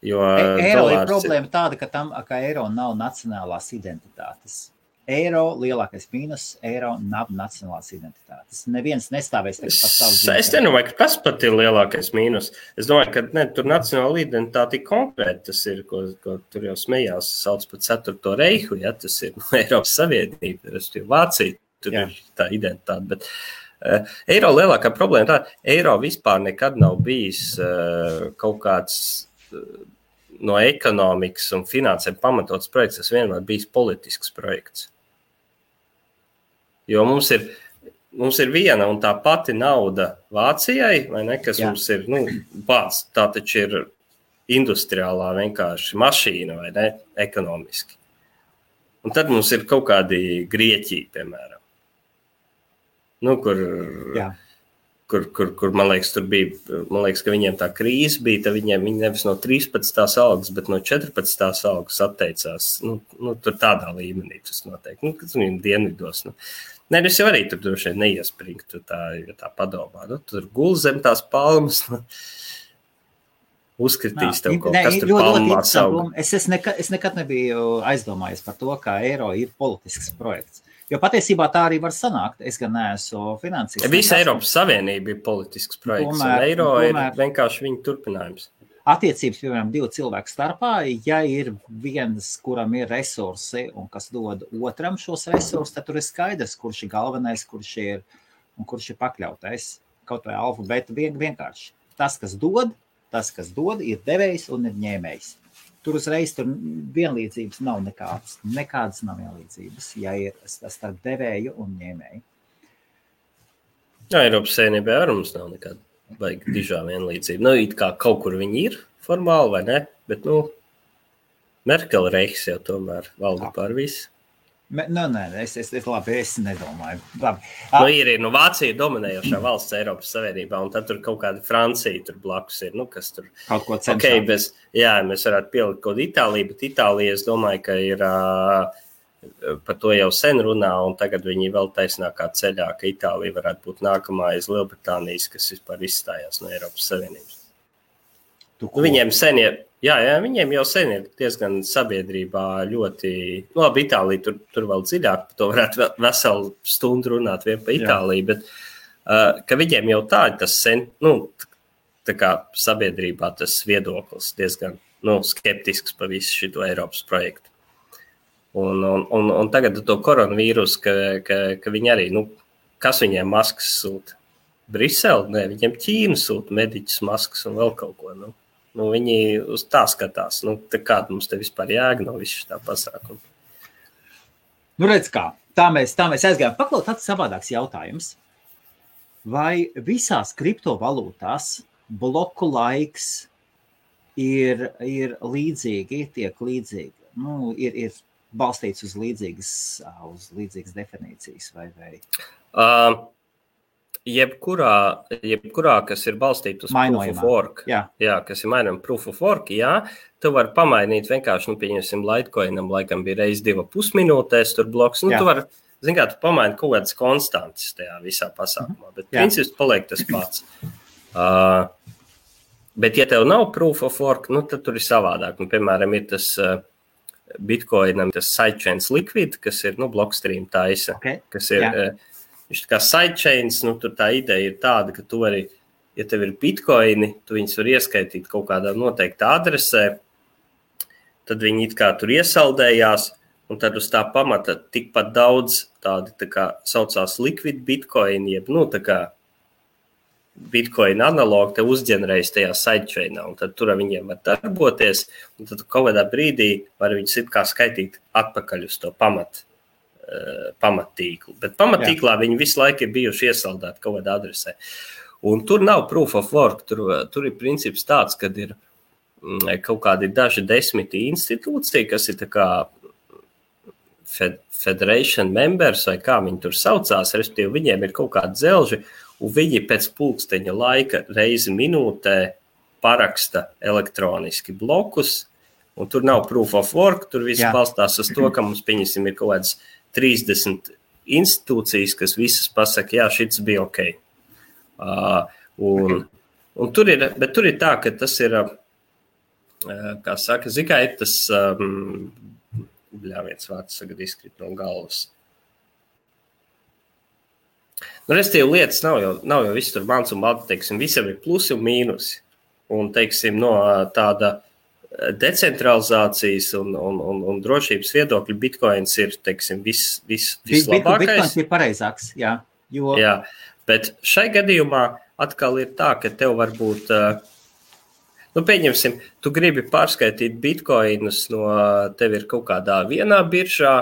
Jo eiro ir problēma tāda, ka eiro nav nacionālās identitātes. Eiro lielākais mīnus, eiro nav nacionālās identitātes. Neviens nestāvēs par savu dzīvi. Es nedomāju, ka tas pat ir lielākais mīnus. Es domāju, ka tur nacionāla identitāte ir konkrēti. Tas ir, ko tur jau smējās, sauc par 4. reihu, ja tas ir Eiropas Savienība, tas ir Vācija, tur ir tā identitāte. Bet eiro lielākā problēma tā, eiro vispār nekad nav bijis kaut kāds no ekonomikas un finansēm pamatots projekts, tas vienmēr bijis politisks projekts. Jo mums ir viena un tā pati nauda Vācijai, vai ne, kas mums ir, bāds, tā taču ir industriālā vienkārši mašīna, vai ne, ekonomiski. Un tad mums ir kaut kādi Grieķija, piemēram. Kur man liekas, tur bija, ka viņiem tā krīze bija, tad viņi nevis no 13. algas, bet no 14. algas atteicās. Tur tādā līmenī tas notiek. Kad viņiem dienvidos. Es jau arī tur droši vien neiespringtu, tā padomā. Tur gul zem tās palmas, uzkritīs tev kaut kas tur palmā sauga. Es nekad nebiju aizdomājies par to, kā eiro ir politisks projekts. Jo patiesībā tā arī var sanākt. Es gan neesmu finansīgs. Visa Eiropas Savienība ir politisks projekts, un eiro ir vienkārši viņa turpinājums. Attiecības, piemēram, 2 cilvēku starpā, ja ir viens, kuram ir resursi un kas dod otram šos resursus, tad tur ir skaidrs, kurš ir galvenais, kurš ir pakļautais. Kaut vai alfabēta vienkārši. Tas, kas dod, ir devējs un ir ņēmējs. Tur uzreiz vienlīdzības nav nekādas. Nekādas nav vienlīdzības, ja ir starp devēju un ņēmēju. Eiropas Savienībā ar mums nav nekāda baigi dižā vienlīdzība. It kā kaut kur viņi ir formāli vai ne, bet, Merkele reiks jau tomēr valda pār visu. Labi, es nedomāju. Ir Vācija dominējošā valsts Eiropas Savienībā, un tad tur kaut kāda Francija tur blakus ir, kas tur kaut ko cenšas. Mēs varētu pielikt kaut Itāliju, bet Itālija, es domāju, ka ir par to jau sen runā, un tagad viņi vēl taisnākā ceļā, ka Itālija varētu būt nākamā aiz Lielbritānijas, kas vispār izstājās no Eiropas Savienības. Viņiem sen ir. Viņiem jau sen ir diezgan sabiedrībā ļoti, labi, Itālija tur vēl dziļāk, par to varētu veselu stundu runāt vien pa Itāliju, bet ka viņiem jau tā ir tas sen, tā kā sabiedrībā tas viedoklis diezgan, skeptisks pa visu šito Eiropas projektu. Un tagad to koronavīrus, ka viņi arī, kas viņiem maskas sūta? Brisele? Nē, viņiem Ķīna sūta mediķus maskas un vēl kaut ko, viņi uz tā skatās. Kāda mums te vispār jēga no visu tā pasākuma? Redz kā, tā mēs aizgājām. Paklaut tāds savādāks jautājums. Vai visās kriptovalūtās bloku laiks ir līdzīgi, tiek līdzīgi? Ir balstīts uz līdzīgas definīcijas vai? Jebkurā, kas ir balstīta uz proof of work, kas ir mainām proof of work, tu vari pamainīt vienkārši, pieņemsim, Litecoinam, laikam bija reiz 2,5 minūtēs tur bloks, tu vari, tu pamaini kaut kādas konstantas tajā visā pasākumā, bet princips paliek tas pats. Bet, ja tev nav proof of work, nu, tad tur ir savādāk. Nu, piemēram, ir tas Bitcoinam, tas sidechains liquid, kas ir, nu, Blockstream taisa, kas ir, viņš kā sidechains, nu, tur tā ideja ir tāda, ka tu vari, ja tev ir Bitcoini, tu viņus var ieskaitīt kaut kādā noteikta adresē, tad viņi it kā tur iesaldējās, un tad uz tā pamata tikpat daudz tādi, tā kā saucās liquid Bitcoin, jeb, nu, tā kā Bitcoin analogu te uzģenerējas tajā sidechainā, un tad tur viņiem var darboties, un tad kaut kādā brīdī var viņus it kā skaitīt atpakaļ uz to pamattīklu. Bet pamattīklā viņi visu laiku ir bijuši iesaldēti kaut kādā adresē. Un tur nav proof of work, tur ir princips tāds, kad ir kaut kādi daži 10 institūcija, kas ir tā kā federation members, vai kā viņi tur saucās, respektīvi viņiem ir kaut kādi dzelži, un viņi pēc pulksteņa laika reizi minūtē paraksta elektroniski blokus, un tur nav proof of work, tur viss balstās uz to, ka mums, pieņemsim, ir kaut kādas 30 institūcijas, kas visas pasaka, jā, šits bija ok. Un tur ir, bet tur ir tā, ka tas ir, kā saka, zikai ir tas, viens vārds sagad izkrit no galvas. Nu, restīvi lietas nav jau viss tur mans un balti, teiksim, visam ir plusi un mīnusi. Un, teiksim, no tāda decentralizācijas un drošības viedokļa Bitcoins ir, teiksim, vislabākais. Bitcoins ir pareizāks, jā. Jo... Jā, bet šai gadījumā atkal ir tā, ka tev var būt, nu, pieņemsim, tu gribi pārskaitīt Bitcoinus no, tev ir kaut kādā vienā biržā,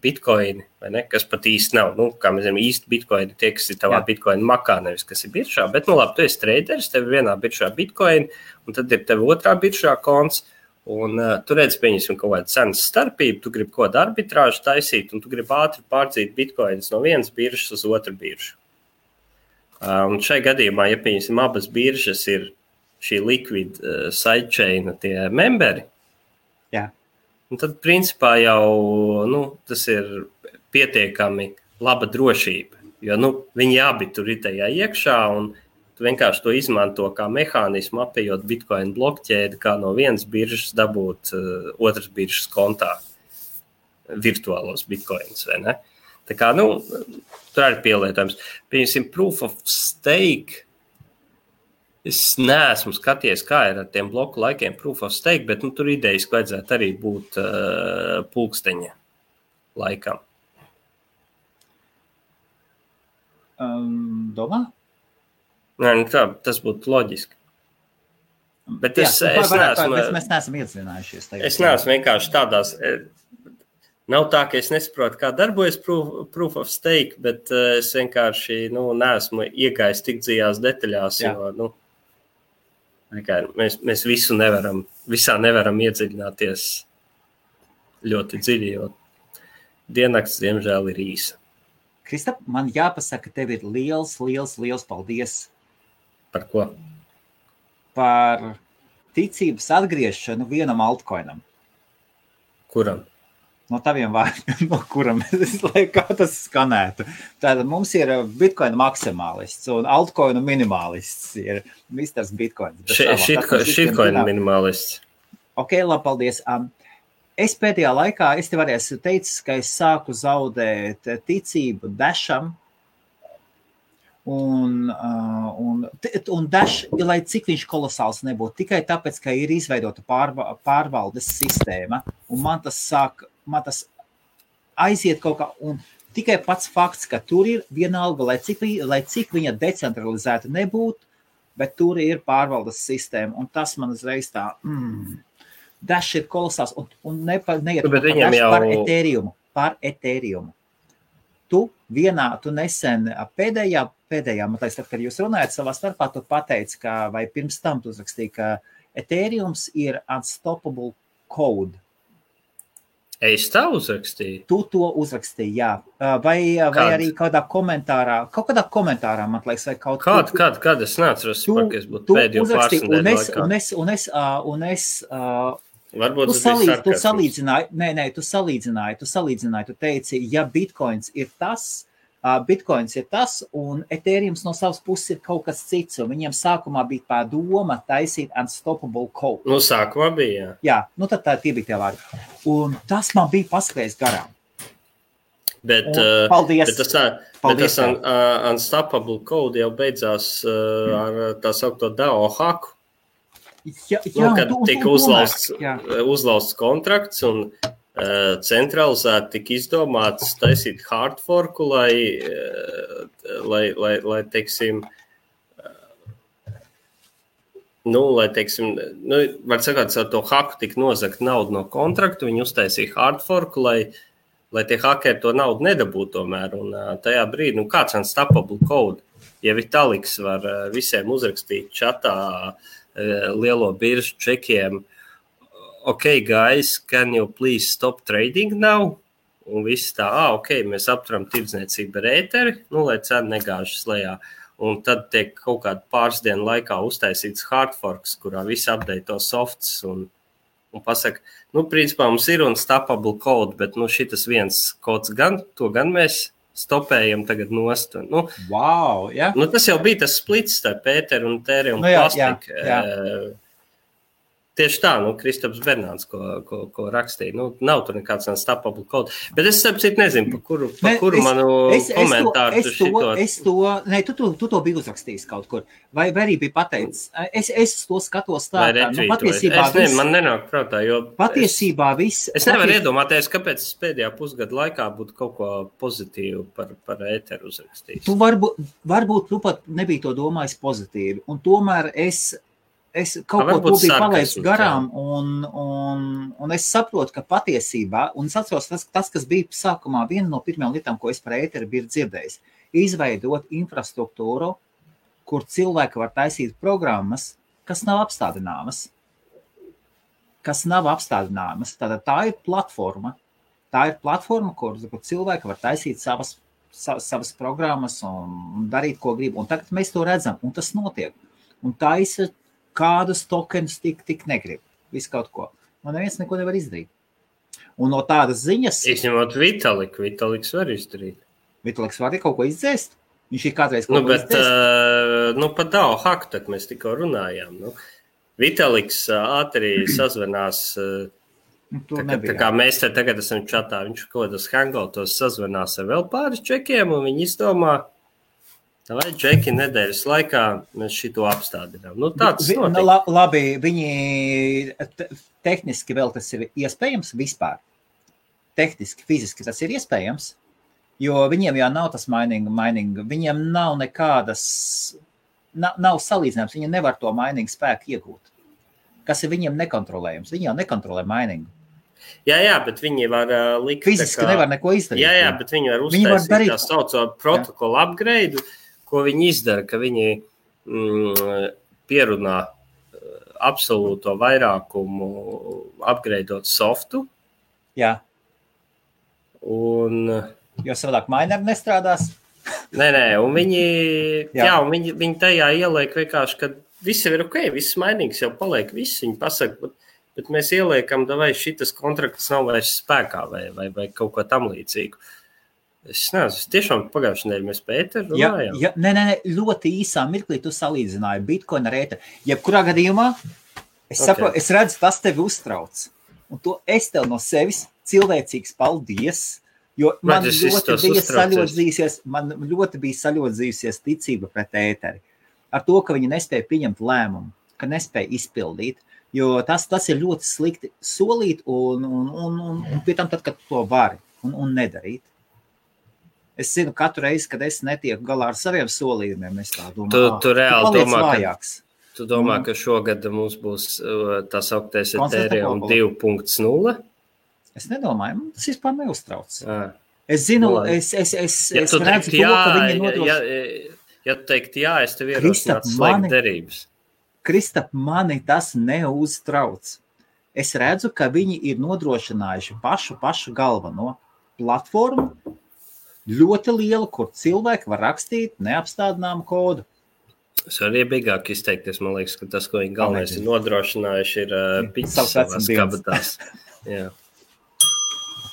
Bitcoini, vai ne, kas pat īsti nav. Nu, kā mēs zinām, īsti Bitcoini tie, kas ir tavā Bitcoin makā, nevis kas ir biržā. Bet, nu labi, tu esi traderis, tev ir vienā biržā Bitcoini, un tad ir tev otrā biržā konts, un tu redz, pieņemsim, kaut kādu cenas starpību, tu gribi kaut kādu arbitrāžu taisīt, un tu gribi ātri pārdzīt Bitcoinis no vienas biržas uz otru biržu. Un šai gadījumā, ja, pieņemsim, abas biržas ir šī liquid sidechaina tie memberi, un tad, principā, jau tas ir pietiekami laba drošība, jo viņi abi tur ir tajā iekšā, un tu vienkārši to izmanto kā mehānismu, apējot Bitcoin blokķēdi, kā no vienas biržas dabūt otras biržas kontā virtuālos Bitcoins, vai ne? Tā kā, tur arī pielietojums. Pieņemsim, proof of stake. Es neesmu skaties, kā ir ar tiem bloku laikiem proof of stake, bet tur idejas vajadzētu arī būt pulksteņa laikam. Domā? Nē, tā, tas būtu loģiski. Bet es neesmu... Bet mēs neesam iedzinājušies. Es neesmu vienkārši tādās... Nav tā, ka es nesaprotu, kā darbojas proof of stake, bet es vienkārši neesmu iegājis tik dziļās detaļās, jo mēs visā nevaram iedziļināties ļoti dziļi, jo diennakts, diemžēl, ir īsa. Kristap, man jāpasaka, tev ir liels paldies. Par ko? Par ticības atgriešanu vienam altcoinam. Kuram? No taviem vārdiem, no kuram kā tas skanētu. Tātad mums ir Bitcoin maksimālists un altcoinu minimālists ir Mr. Bitcoin. Shitcoin minimālists. Ok, labi, paldies. Es pēdējā laikā, es tev arī esmu teicis, ka es sāku zaudēt ticību Dasham. Un Dash, lai cik viņš kolosāls nebūtu, tikai tāpēc, ka ir izveidota pārvaldes sistēma, un man tas aiziet kaut kā, un tikai pats fakts, ka tur ir vienalga, lai cik viņa decentralizēta nebūtu, bet tur ir pārvaldes sistēma, un tas man uzreiz tā, Dash ir kolosāls, un neiet par Ethereum. Tu nesen pēdējā, man liekas, tad, kad jūs runājat savā starpā, tu pateici, vai pirms tam tu uzrakstīji, ka Ethereums ir unstoppable code. Es tā uzrakstīju? Tu to uzrakstīji, jā. Vai arī kaut kādā komentārā, man liekas, vai kaut kā. Kad es neatceros, ka es būtu pēdējo pārsnedēļu laikā. Un es varbūt tu salīdzināji, tu teici, ja Bitcoins ir tas, Bitcoins ir tas, un Ethereum no savas puses ir kaut kas cits, un viņiem sākumā bija tā doma taisīt unstoppable code. Nu, sākumā bija, jā. Jā, nu tad tie bija tie vārdi. Un tas man bija paskrējis garām. Bet tas unstoppable code jau beidzās ar tā saukto DAO haku. Jā, kad tika uzlausts kontrakts un centralizēti tika izdomāts taisīt hard forku, lai teiksim, var sakāt, ar to haku tika nozagt naudu no kontraktu, viņi uztaisīja hard forku, lai tie hakeri to naudu nedabūtu tomēr, un tajā brīdī, kāds unstoppable code, ja Vitaliks var visiem uzrakstīt čatā lielo biržu čekiem, okay, guys, can you please stop trading now? Un viss tā, mēs apturam tirdzniecību ar ēteri, lai cena negāžas lejā. Un tad tiek kaut kādu pāris dienu laikā uztaisīts hard forks, kurā visi update to softs un pasaka, principā mums ir unstoppable code, bet šitas viens kods to gan mēs stopējam tagad nost. Wow, jā. Tas jau bija tas splits starp ēteru un tēri un plastiku. Tieši tā, Kristaps Bernāns, ko rakstīja. Nav tur nekāds unstoppable code. Bet es sapratu, nezinu, pa kuru manu komentāru tu to biji uzrakstījis kaut kur. Vai arī bija pateicis? Es to skatos tā. Patiesībā man nenāk prātā, jo patiesībā viss. Es nevaru iedomāties, kāpēc es pēdējā pusgada laikā būtu kaut ko pozitīvu par ēteru uzrakstījis. Tu varbūt tu pat nebija to domājis pozitīvi. Un tomēr es kaut ko to biju palaicis garām, un es saprotu, ka patiesībā, un es atceros tas, kas bija sākumā, viena no pirmajām lietām, ko es par ēteri biju dzirdējis, izveidot infrastruktūru, kur cilvēki var taisīt programmas, kas nav apstādināmas. Tātad tā ir platforma. Kur cilvēki var taisīt savas programmas un darīt, ko grib. Un tagad mēs to redzam, un tas notiek. Un taisa kādus tokenus tik negrib. Visu kaut ko. Man neviens neko nevar izdarīt. Un no tādas ziņas... Izņemot Vitaliks var izdarīt. Vitaliks var kaut ko izdzēst? Viņš ir kādreiz kaut ko izdzēst? Par DAO haku, tad mēs tikko runājām. Vitaliks ātri sazvanās... Tā kā mēs te tagad esam čatā, viņš kaut kādos hangoutos sazvanās ar vēl pāris čekiem, un viņi izdomā... Vai džeki nedēļas laikā mēs šito apstādinām? Tāds notiek. Labi, viņi tehniski vēl tas ir iespējams vispār. Tehniski, fiziski tas ir iespējams, jo viņiem jau nav tas mining, viņiem nav nekādas, nav salīdzinājums, viņi nevar to mining spēku iegūt. Kas ir viņiem nekontrolējams? Viņi jau nekontrolē miningu. Jā, bet viņi var likt... Fiziski nevar neko izdarīt. Jā, bet viņi var uztaisīt tā sauco protokolu upgrade, ko viņi izdara, ka viņi pierunā absolūto vairākumu upgradeot softu. Jā. Un... Jo savādāk mineri nestrādās. Nē, un viņi tajā ieliek vienkārši, ka viss ir ok, viss mainīgs jau paliek, viss viņi pasaka, bet mēs ieliekam, vai šitas kontrakts nav vairs spēkā vai kaut ko tam līdzīgu. Es nezinu, tiešām pagājušajā nedēļā mēs par ēteru runājām. Nē, ļoti īsā mirklī tu salīdzināji Bitcoin ar ēteru. Jebkurā gadījumā, saprotu, es redzu, tas tevi uztrauc. Un to es tev no sevis cilvēcīgs paldies, jo man ļoti bija saļodzījusies ticība pret ēteri. Ar to, ka viņi nespēja pieņemt lēmumu, ka nespēja izpildīt, jo tas ir ļoti slikti solīt un pie tam tad, kad to vari un nedarīt. Es zinu, katru reizi, kad es netieku galā ar saviem solījumiem, es tā domāju, tu reāli domā, ka šogad mums būs tā sauktais Ethereum 2.0? Es nedomāju, tas vispār neuztrauc. Es zinu, es redzu to, ka viņi nodrošina. Ja tu teikt jā, es tev ierosinātu slēgt derības. Kristap, mani tas neuztrauc. Es redzu, ka viņi ir nodrošinājuši pašu galveno platformu, ļoti liela, kur cilvēki var rakstīt neapstādināmu kodu. Es varu iebīgāk izteikties, man liekas, ka tas, ko viņi galvenais ir nodrošinājuši, ir piķis savās kabatās. Jā.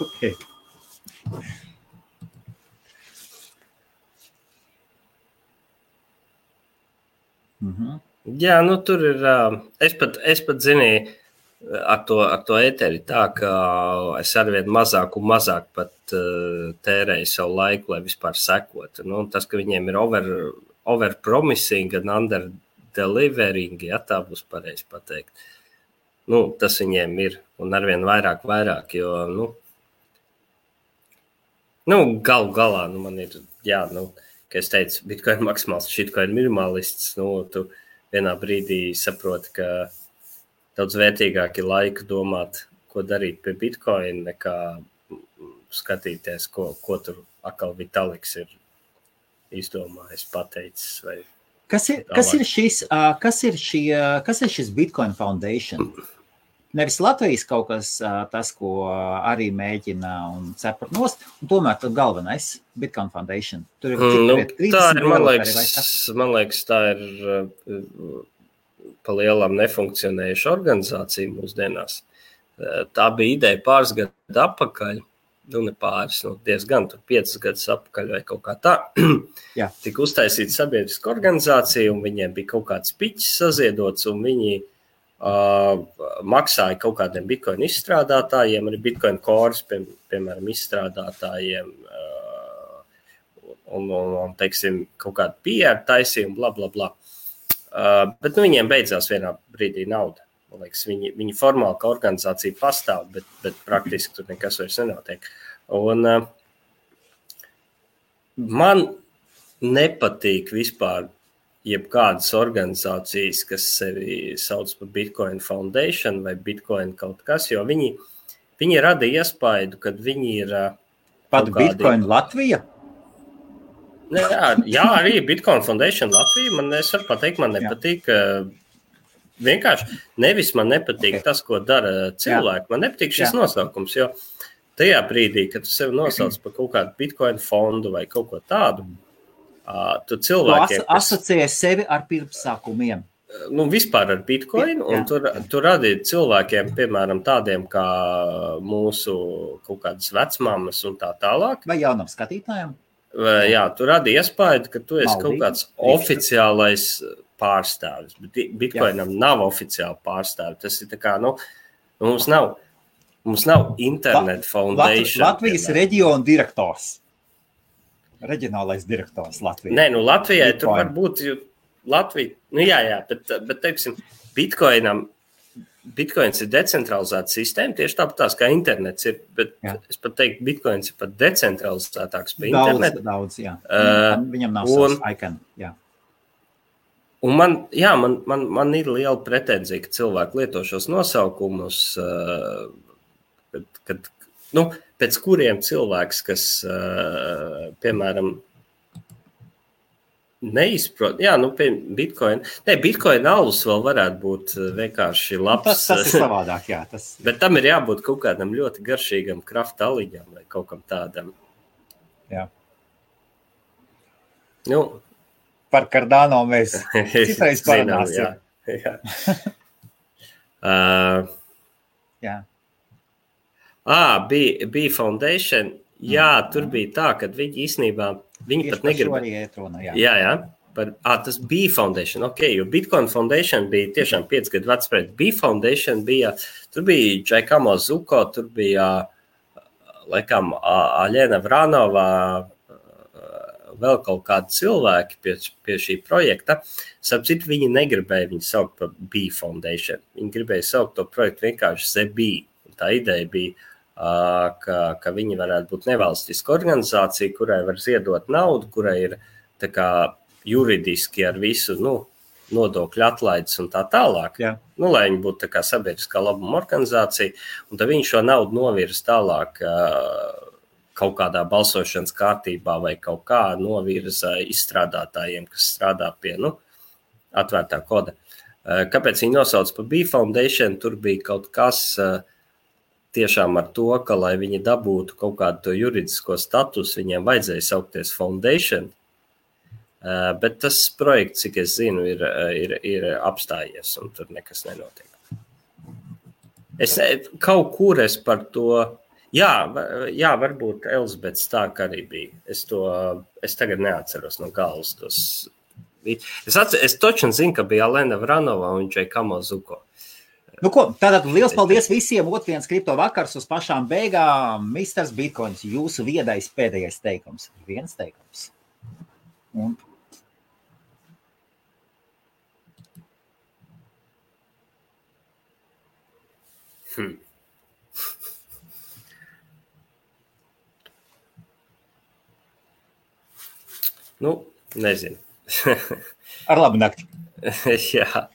Okay. Jā, nu tur ir, es pat zinīju, ar to ēteri tā, ka es arvien mazāk un mazāk pat tērēju savu laiku, lai vispār sekotu. Nu, tas, ka viņiem ir over-promising un under-delivering, ja tā būs pareizi pateikt. Nu, tas viņiem ir, un arvien vairāk, jo, galu galā, man ir, kā es teicu, Bitcoin maksimāls, shitcoin minimalists, tu vienā brīdī saproti, ka daudz vērtīgāk ir laika domāt, ko darīt pie Bitcoin, nekā skatīties, ko tur atkal Vitaliks ir izdomājis, pateicis. Vai Kas ir šis Bitcoin Foundation? Nevis Latvijas kaut kas tas, ko arī mēģina un cepurt nost, un tomēr tad galvenais Bitcoin Foundation. Tur ir tā ir, man liekas, tā ir pa lielām nefunkcionējuša organizācija mūsdienās. Tā bija ideja pāris gadu atpakaļ, ne pāris, diezgan, 5 gadus atpakaļ vai kaut kā tā. Tika uztaisīta sabiedriska organizācija, un viņiem bija kaut kāds piķis saziedots, un viņi maksāja kaut kādiem Bitcoin izstrādātājiem, arī Bitcoin Cores, piemēram, izstrādātājiem, un teiksim, kaut kādu PR taisījumu, bla, bla, bla. Bet viņiem beidzās vienā brīdī nauda. Man liekas, viņi formāli kā organizācija pastāv, bet praktiski tur nekas vairs nenotiek. Un man nepatīk vispār jebkādas organizācijas, kas sevi sauc par Bitcoin Foundation vai Bitcoin kaut kas, jo viņi rada iespaidu, kad viņi ir pat Bitcoin Latvija? Jā, arī Bitcoin Foundation Latvija. Es varu pateikt, man nepatīk. Vienkārši nevis man nepatīk tas, ko dara cilvēki. Man nepatīk šis nosaukums, jo tajā brīdī, kad tu sevi nosauc par kaut kādu Bitcoin fondu vai kaut ko tādu, tu cilvēkiem... Tu asociē sevi ar pirmsākumiem. Vispār ar Bitcoin, un tur radīt cilvēkiem, piemēram, tādiem kā mūsu kaut kādas vecmāmas un tā tālāk. Vai jaunam skatītājiem? Jā, tu radi iespēju, ka tu esi kaut kāds oficiālais pārstāvis, bet Bitcoinam nav oficiāli pārstāvi. Tas ir tā kā, mums nav Internet Foundation. Latvijas reģiona direktors. Reģionālais direktors Latvijā. Nē, Latvijai tur var būt Latvija, bet teiksim, Bitcoins ir decentralizēta sistēma, tieši tāpat kā internets ir, bet es pat teiktu, Bitcoins ir pat decentralizētāks par internetu. Daudz, jā. Viņam nav savs icon, jā. Un man ir liela pretenzija, ka cilvēki lieto šos nosaukumus, pēc kuriem cilvēks, kas, piemēram, neizprot, Bitcoin. Bitcoin alus vēl varētu būt vienkārši labs. Tas ir savādāk, jā. Bet tam ir jābūt kaut kādam ļoti garšīgam krafta aliņam vai kaut kam tādam. Jā. Par Cardano mēs citreiz parunāsim. Jā. Bija Foundation. Jā, tur bija tā, ka viņi īstenībā, viņi pat negribēja. Jā. Tas bija Foundation, jo Bitcoin Foundation bija tiešām 5 gadu vecs projekt. Bija Foundation, tur bija Giacomo Zucco, tur bija, laikam, Aļena Vranova, vēl kaut kādi cilvēki pie šī projekta. Starp citu, viņi negribēja viņu saukt par B Foundation. Viņi gribēja saukt to projektu vienkārši ZB. Tā ideja bija, ka viņi varētu būt nevalstiska organizācija, kurai var ziedot naudu, kurai ir tā kā juridiski ar visu nodokļu atlaides un tā tālāk. Lai viņi būtu tā kā sabiedriskā labuma organizācija, un tad viņi šo naudu novirza tālāk kaut kādā balsošanas kārtībā vai kaut kā novirza izstrādātājiem, kas strādā pie atvērtā koda. Kāpēc viņi nosauc par B Foundation? Tur bija kaut kas tiešām ar to, ka, lai viņi dabūtu kaut kādu to juridisko statusu, viņiem vajadzēja saukties Foundation, bet tas projekts, cik es zinu, ir apstājies, un tur nekas nenotiek. Kaut kur es par to, varbūt Elizabets tā, ka arī bija. Es tagad neatceros no galvas tos Es toču zinu, ka bija Alena Vranova un viņš Kamo Zuko. Nu ko, tātad liels paldies visiem. Otrdienas kripto vakars uz pašām beigām. Misters Bitcoins, jūsu viedais pēdējais teikums. Viens teikums. Un... Nu, nezinu. Ar labu nakti. Jā.